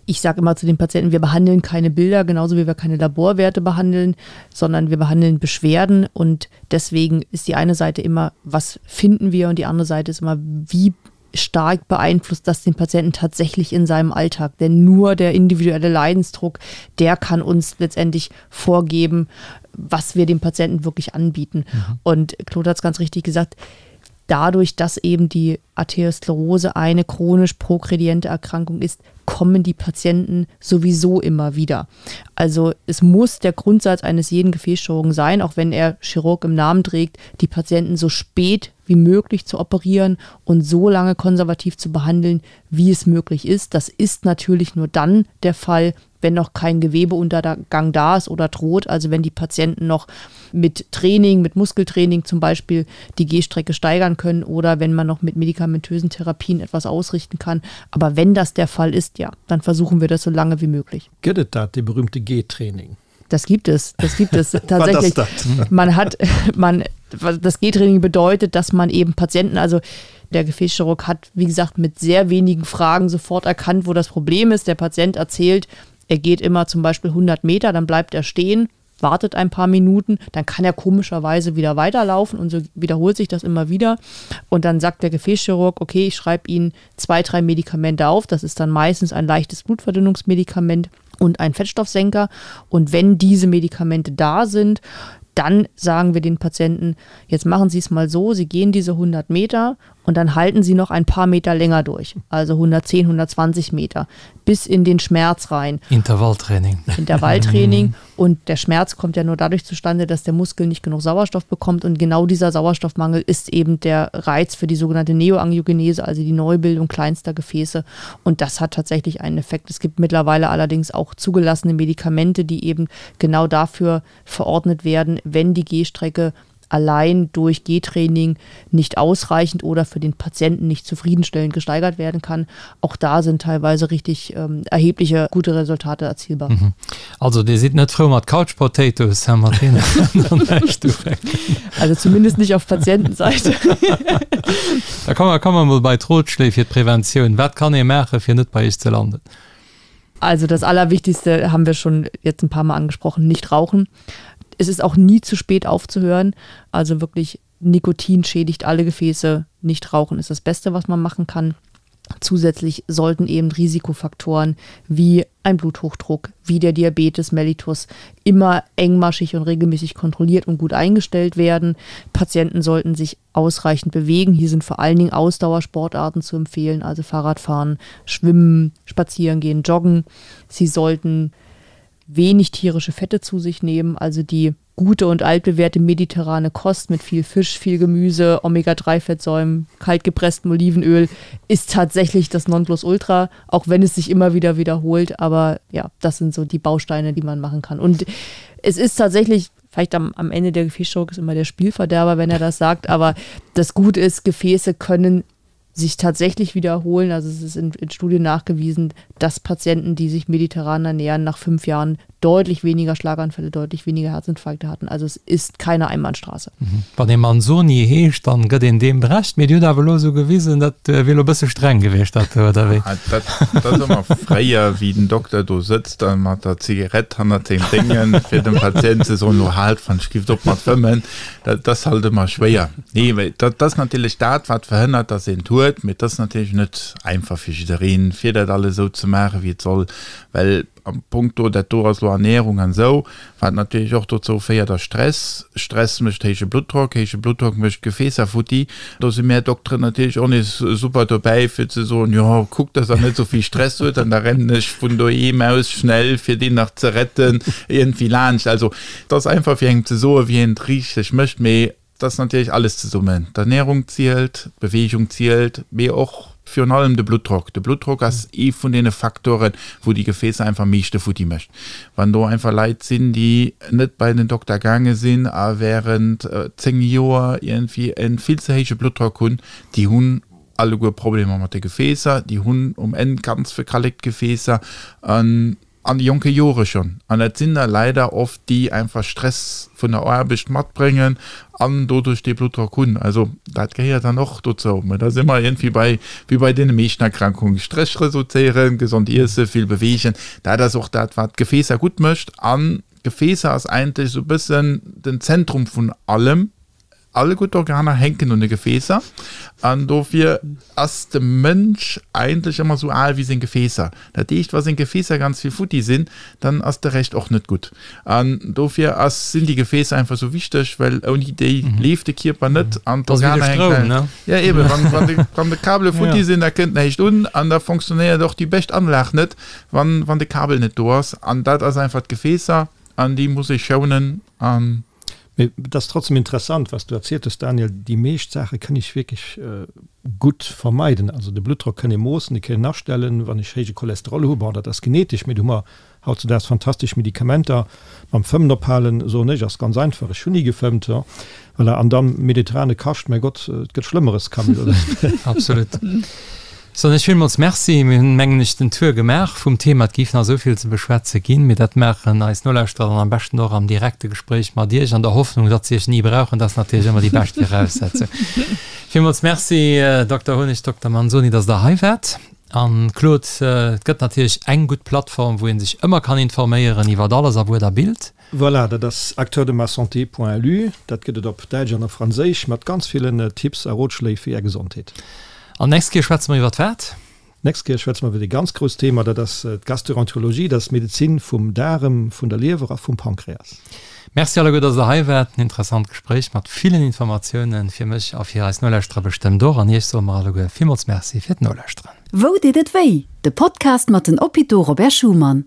S5: ich sage immer zu den Patienten, wir behandeln keine Bilder, genauso wie wir keine Laborwerte behandeln, sondern wir behandeln Beschwerden. Und deswegen ist die eine Seite immer, was finden wir? Und die andere Seite ist immer, wie stark beeinflusst das den Patienten tatsächlich in seinem Alltag. Denn nur der individuelle Leidensdruck, der kann uns letztendlich vorgeben, was wir dem Patienten wirklich anbieten. Mhm. Und Claude hat es ganz richtig gesagt, dadurch, dass eben die Arteriosklerose eine chronisch progrediente Erkrankung ist, kommen die Patienten sowieso immer wieder. Also es muss der Grundsatz eines jeden Gefäßchirurgen sein, auch wenn er Chirurg im Namen trägt, die Patienten so spät wie möglich zu operieren und so lange konservativ zu behandeln, wie es möglich ist. Das ist natürlich nur dann der Fall, wenn noch kein Gewebeuntergang da ist oder droht, also wenn die Patienten noch mit Training, mit Muskeltraining zum Beispiel die Gehstrecke steigern können oder wenn man noch mit medikamentösen Therapien etwas ausrichten kann. Aber wenn das der Fall ist, ja, dann versuchen wir das so lange wie möglich.
S3: Gëtt et dat, dee berühmte Gehtraining?
S5: Das gibt es, das gibt es tatsächlich. Das? Man hat, man, das Gehtraining bedeutet, dass man eben Patienten, also der Gefäßchirurg hat, wie gesagt, mit sehr wenigen Fragen sofort erkannt, wo das Problem ist. Der Patient erzählt, er geht immer zum Beispiel 100 Meter, dann bleibt er stehen, wartet ein paar Minuten, dann kann er komischerweise wieder weiterlaufen und so wiederholt sich das immer wieder. Und dann sagt der Gefäßchirurg, okay, ich schreibe Ihnen zwei, drei Medikamente auf. Das ist dann meistens ein leichtes Blutverdünnungsmedikament und ein Fettstoffsenker. Und wenn diese Medikamente da sind, dann sagen wir den Patienten, jetzt machen Sie es mal so, Sie gehen diese 100 Meter und dann halten Sie noch ein paar Meter länger durch, also 110, 120 Meter, bis in den Schmerz rein.
S2: Intervalltraining.
S5: Intervalltraining. Und der Schmerz kommt ja nur dadurch zustande, dass der Muskel nicht genug Sauerstoff bekommt. Und genau dieser Sauerstoffmangel ist eben der Reiz für die sogenannte Neoangiogenese, also die Neubildung kleinster Gefäße. Und das hat tatsächlich einen Effekt. Es gibt mittlerweile allerdings auch zugelassene Medikamente, die eben genau dafür verordnet werden, wenn die Gehstrecke allein durch Gehtraining nicht ausreichend oder für den Patienten nicht zufriedenstellend gesteigert werden kann. Auch da sind teilweise richtig ähm, erhebliche gute Resultate erzielbar. Mhm.
S2: Also Dir sidd net frou mat Couch Potatoes, hä, mat deenen kann
S5: dann näischt ufänken. Also zumindest nicht auf Patientenseite.
S2: Da komme komme mer mol bei d'Rotschléi fir d'Preventioun. Wat kann ee maachen, fir net bei iech ze landen?
S5: Also das Allerwichtigste haben wir schon jetzt ein paar Mal angesprochen, nicht rauchen. Es ist auch nie zu spät aufzuhören. Also wirklich Nikotin schädigt alle Gefäße. Nicht rauchen ist das Beste, was man machen kann. Zusätzlich sollten eben Risikofaktoren wie ein Bluthochdruck, wie der Diabetes mellitus immer engmaschig und regelmäßig kontrolliert und gut eingestellt werden. Patienten sollten sich ausreichend bewegen. Hier sind vor allen Dingen Ausdauersportarten zu empfehlen, also Fahrradfahren, Schwimmen, Spazieren gehen, Joggen. Sie sollten wenig tierische Fette zu sich nehmen, also die gute und altbewährte mediterrane Kost mit viel Fisch, viel Gemüse, Omega-3-Fettsäumen, kaltgepresstem Olivenöl ist tatsächlich das Nonplusultra, auch wenn es sich immer wieder wiederholt. Aber ja, das sind so die Bausteine, die man machen kann. Und es ist tatsächlich, vielleicht am, am Ende der Gefäßchirurg ist immer der Spielverderber, wenn er das sagt, aber das Gute ist, Gefäße können sich tatsächlich wiederholen. Also es ist in, in Studien nachgewiesen, dass Patienten, die sich mediterran ernähren, nach fünf Jahren deutlich weniger Schlaganfälle, deutlich weniger Herzinfarkte hatten. Also es ist keine Einbahnstraße.
S2: Mhm. Wann ee Manzoni heescht, dann gëtt een deem Recht. Mee Dir hutt awer elo esou gewisen, dat wier elo e bësse streng gewiescht, dat do, oder wéi?
S4: Ah, dat, dat ass ëmmer fréier, wéi den Dokter do sëtzt a mat der Zigarett hannert sengem Déngen, fir dem Patient ze soen, lo haalt, wann ech gift op mat fëmmen. Dat ass halt ëmmer schwéier. Nee, well dat ass natierlech dat, wat verhënnert, dass een et huet. Mee et ass natierlech net einfach fir jiddereen, fir dat alles esou ze maachen, wéi et soll. Well am Punkto, dat do ass elo Ernährung an esou, wat natierlech och dozou féiert, ass Stress. Stress mécht héije Bluttdrock, héije Bluttdrock mécht d'Gefäässer futti. Do si mär Dokteren natierlech och nees super dobäi, fir ze soen, jo, kuckt, dass Der net esou vill Stress huet an da rennen ech vun doheem aus schnell, fir deen nach ze retten, iergendwéi laanscht. Also, Et ass einfach fir engem ze soen, wéi een et richteg mécht, mee. ass natierlech alles zesummen. D'Ernärung zielt, d'Beweegung zielt, mee och virun allem de Bluttdrock. De Bluttdrock ass ee vun deene Faktoren, wou déi Gefäässer einfach am meeschte futti mécht. Wann do einfach Leit sinn, déi net bei den Dokter gaange sinn a wärend 10 Joer iergendwéi e vill ze héije Bluttdrock hunn, déi hunn alleguer Problemer mat de Gefäässer, déi hunn um Enn ganz verkallekt Gefäässer an an de jonke Jore schonn. An dat sinn da leider oft déi einfach Stress vun der Aarbecht matbréngen an doduerch dee Bluttdrock hunn. Also dat gehéiert dann och dozou. Mä da si mer iergendwéi bei, wéi bei deene meeschten Erkrankungen, Stress reduzéieren, gesond iessen, vill beweegen. Dat ass och dat, wat d'Gefäässer gutt mécht. An d'Gefäässer ass eigentlech esou e bëssen den Zentrum vun allem. All gutt Organer hänken un de Gefäässer an dofir ass de Mënsch eigentlech ëmmer sou al wéi seng Gefäässer. Dat heescht, wa seng Gefäässer ganz vill futti sinn, dann ass de Rescht och net gutt. An dofir ass, sinn déi Gefäässer einfach sou wichteg, well ouni déi leeft de Kierper net an d'Organer hänken. Ja eben, wann, wann de, wann de Kabele futti sinn, da kënnt näischt un an da fonctionnéiert och déi bescht Anlag net, wann, wann de Kabel net do ass. An dat ass einfach d'Gefäässer an déi muss ee schounen an.
S3: Mee et ass trotzdem interessant, was du erzielt hues, Daniel. Déi meescht Saache kënn ech wierklech gutt vermeiden. Also de Bluttdrock kënn ee moossen, dee kënn een astellen. Wann ech héije Cholesterol hu, bon, dat ass genetesch, mee do hu mer hautzudaags fantastesch Medikamenter. Mam Fëmmen ophalen, soen ech, ass ganz einfach. Ech hunn ni gefëmmt. Voilà. An dann mediterrane Kascht, mäi Gott, et gëtt Schlëmmeres, Camille, oder?
S2: Absolut. Soen ech villmools Merci. Mir hunn, mengen ech, den Tour gemaach vum Thema. Et géif nach esou vill ze beschwätze ginn, mee dat maachen eis Nolauschterer dann am beschten och am direkte Gespréich mat Iech, an der Hoffnung, datt se Iech ni brauchen. Dat ass natierlech ëmmer déi bescht Viraussetzung. Villmools Merci, Dokter Honig, Dokter Manzoni, datt Der hei waart. An, Claude, et gëtt natierlech eng gutt Plattform, wou ee sech ëmmer kann informéieren iwwert alles a Wuert a Bild.
S3: Voilà, dat ass acteurdemassanté.lu. Dat gëtt et op Däitsch an op Franséisch mat ganz villen Tipps a Rotschléi fir Är Gesondheet.
S2: An d'nächst Kéier schwätze mer iwwert wat?
S3: D'nächst Kéier schwätze mer iwwert ee ganz grousst Thema, dat ass d'Gastroenterologie, dat ass d'Medezin vum Daarem, vun der Liewer a vum Pankreas.
S2: Merci alleguer, dass der hei waart. En interessant Gespréich mat villen Informatiounen fir mech a fir eis Nolauschterer bestëmmt och. An Iech soe mer alleguer villmools Merci fir d'Nolauschteren.
S1: Wou deet et wéi? De Podcast mat den Hôpitaux Robert Schuman.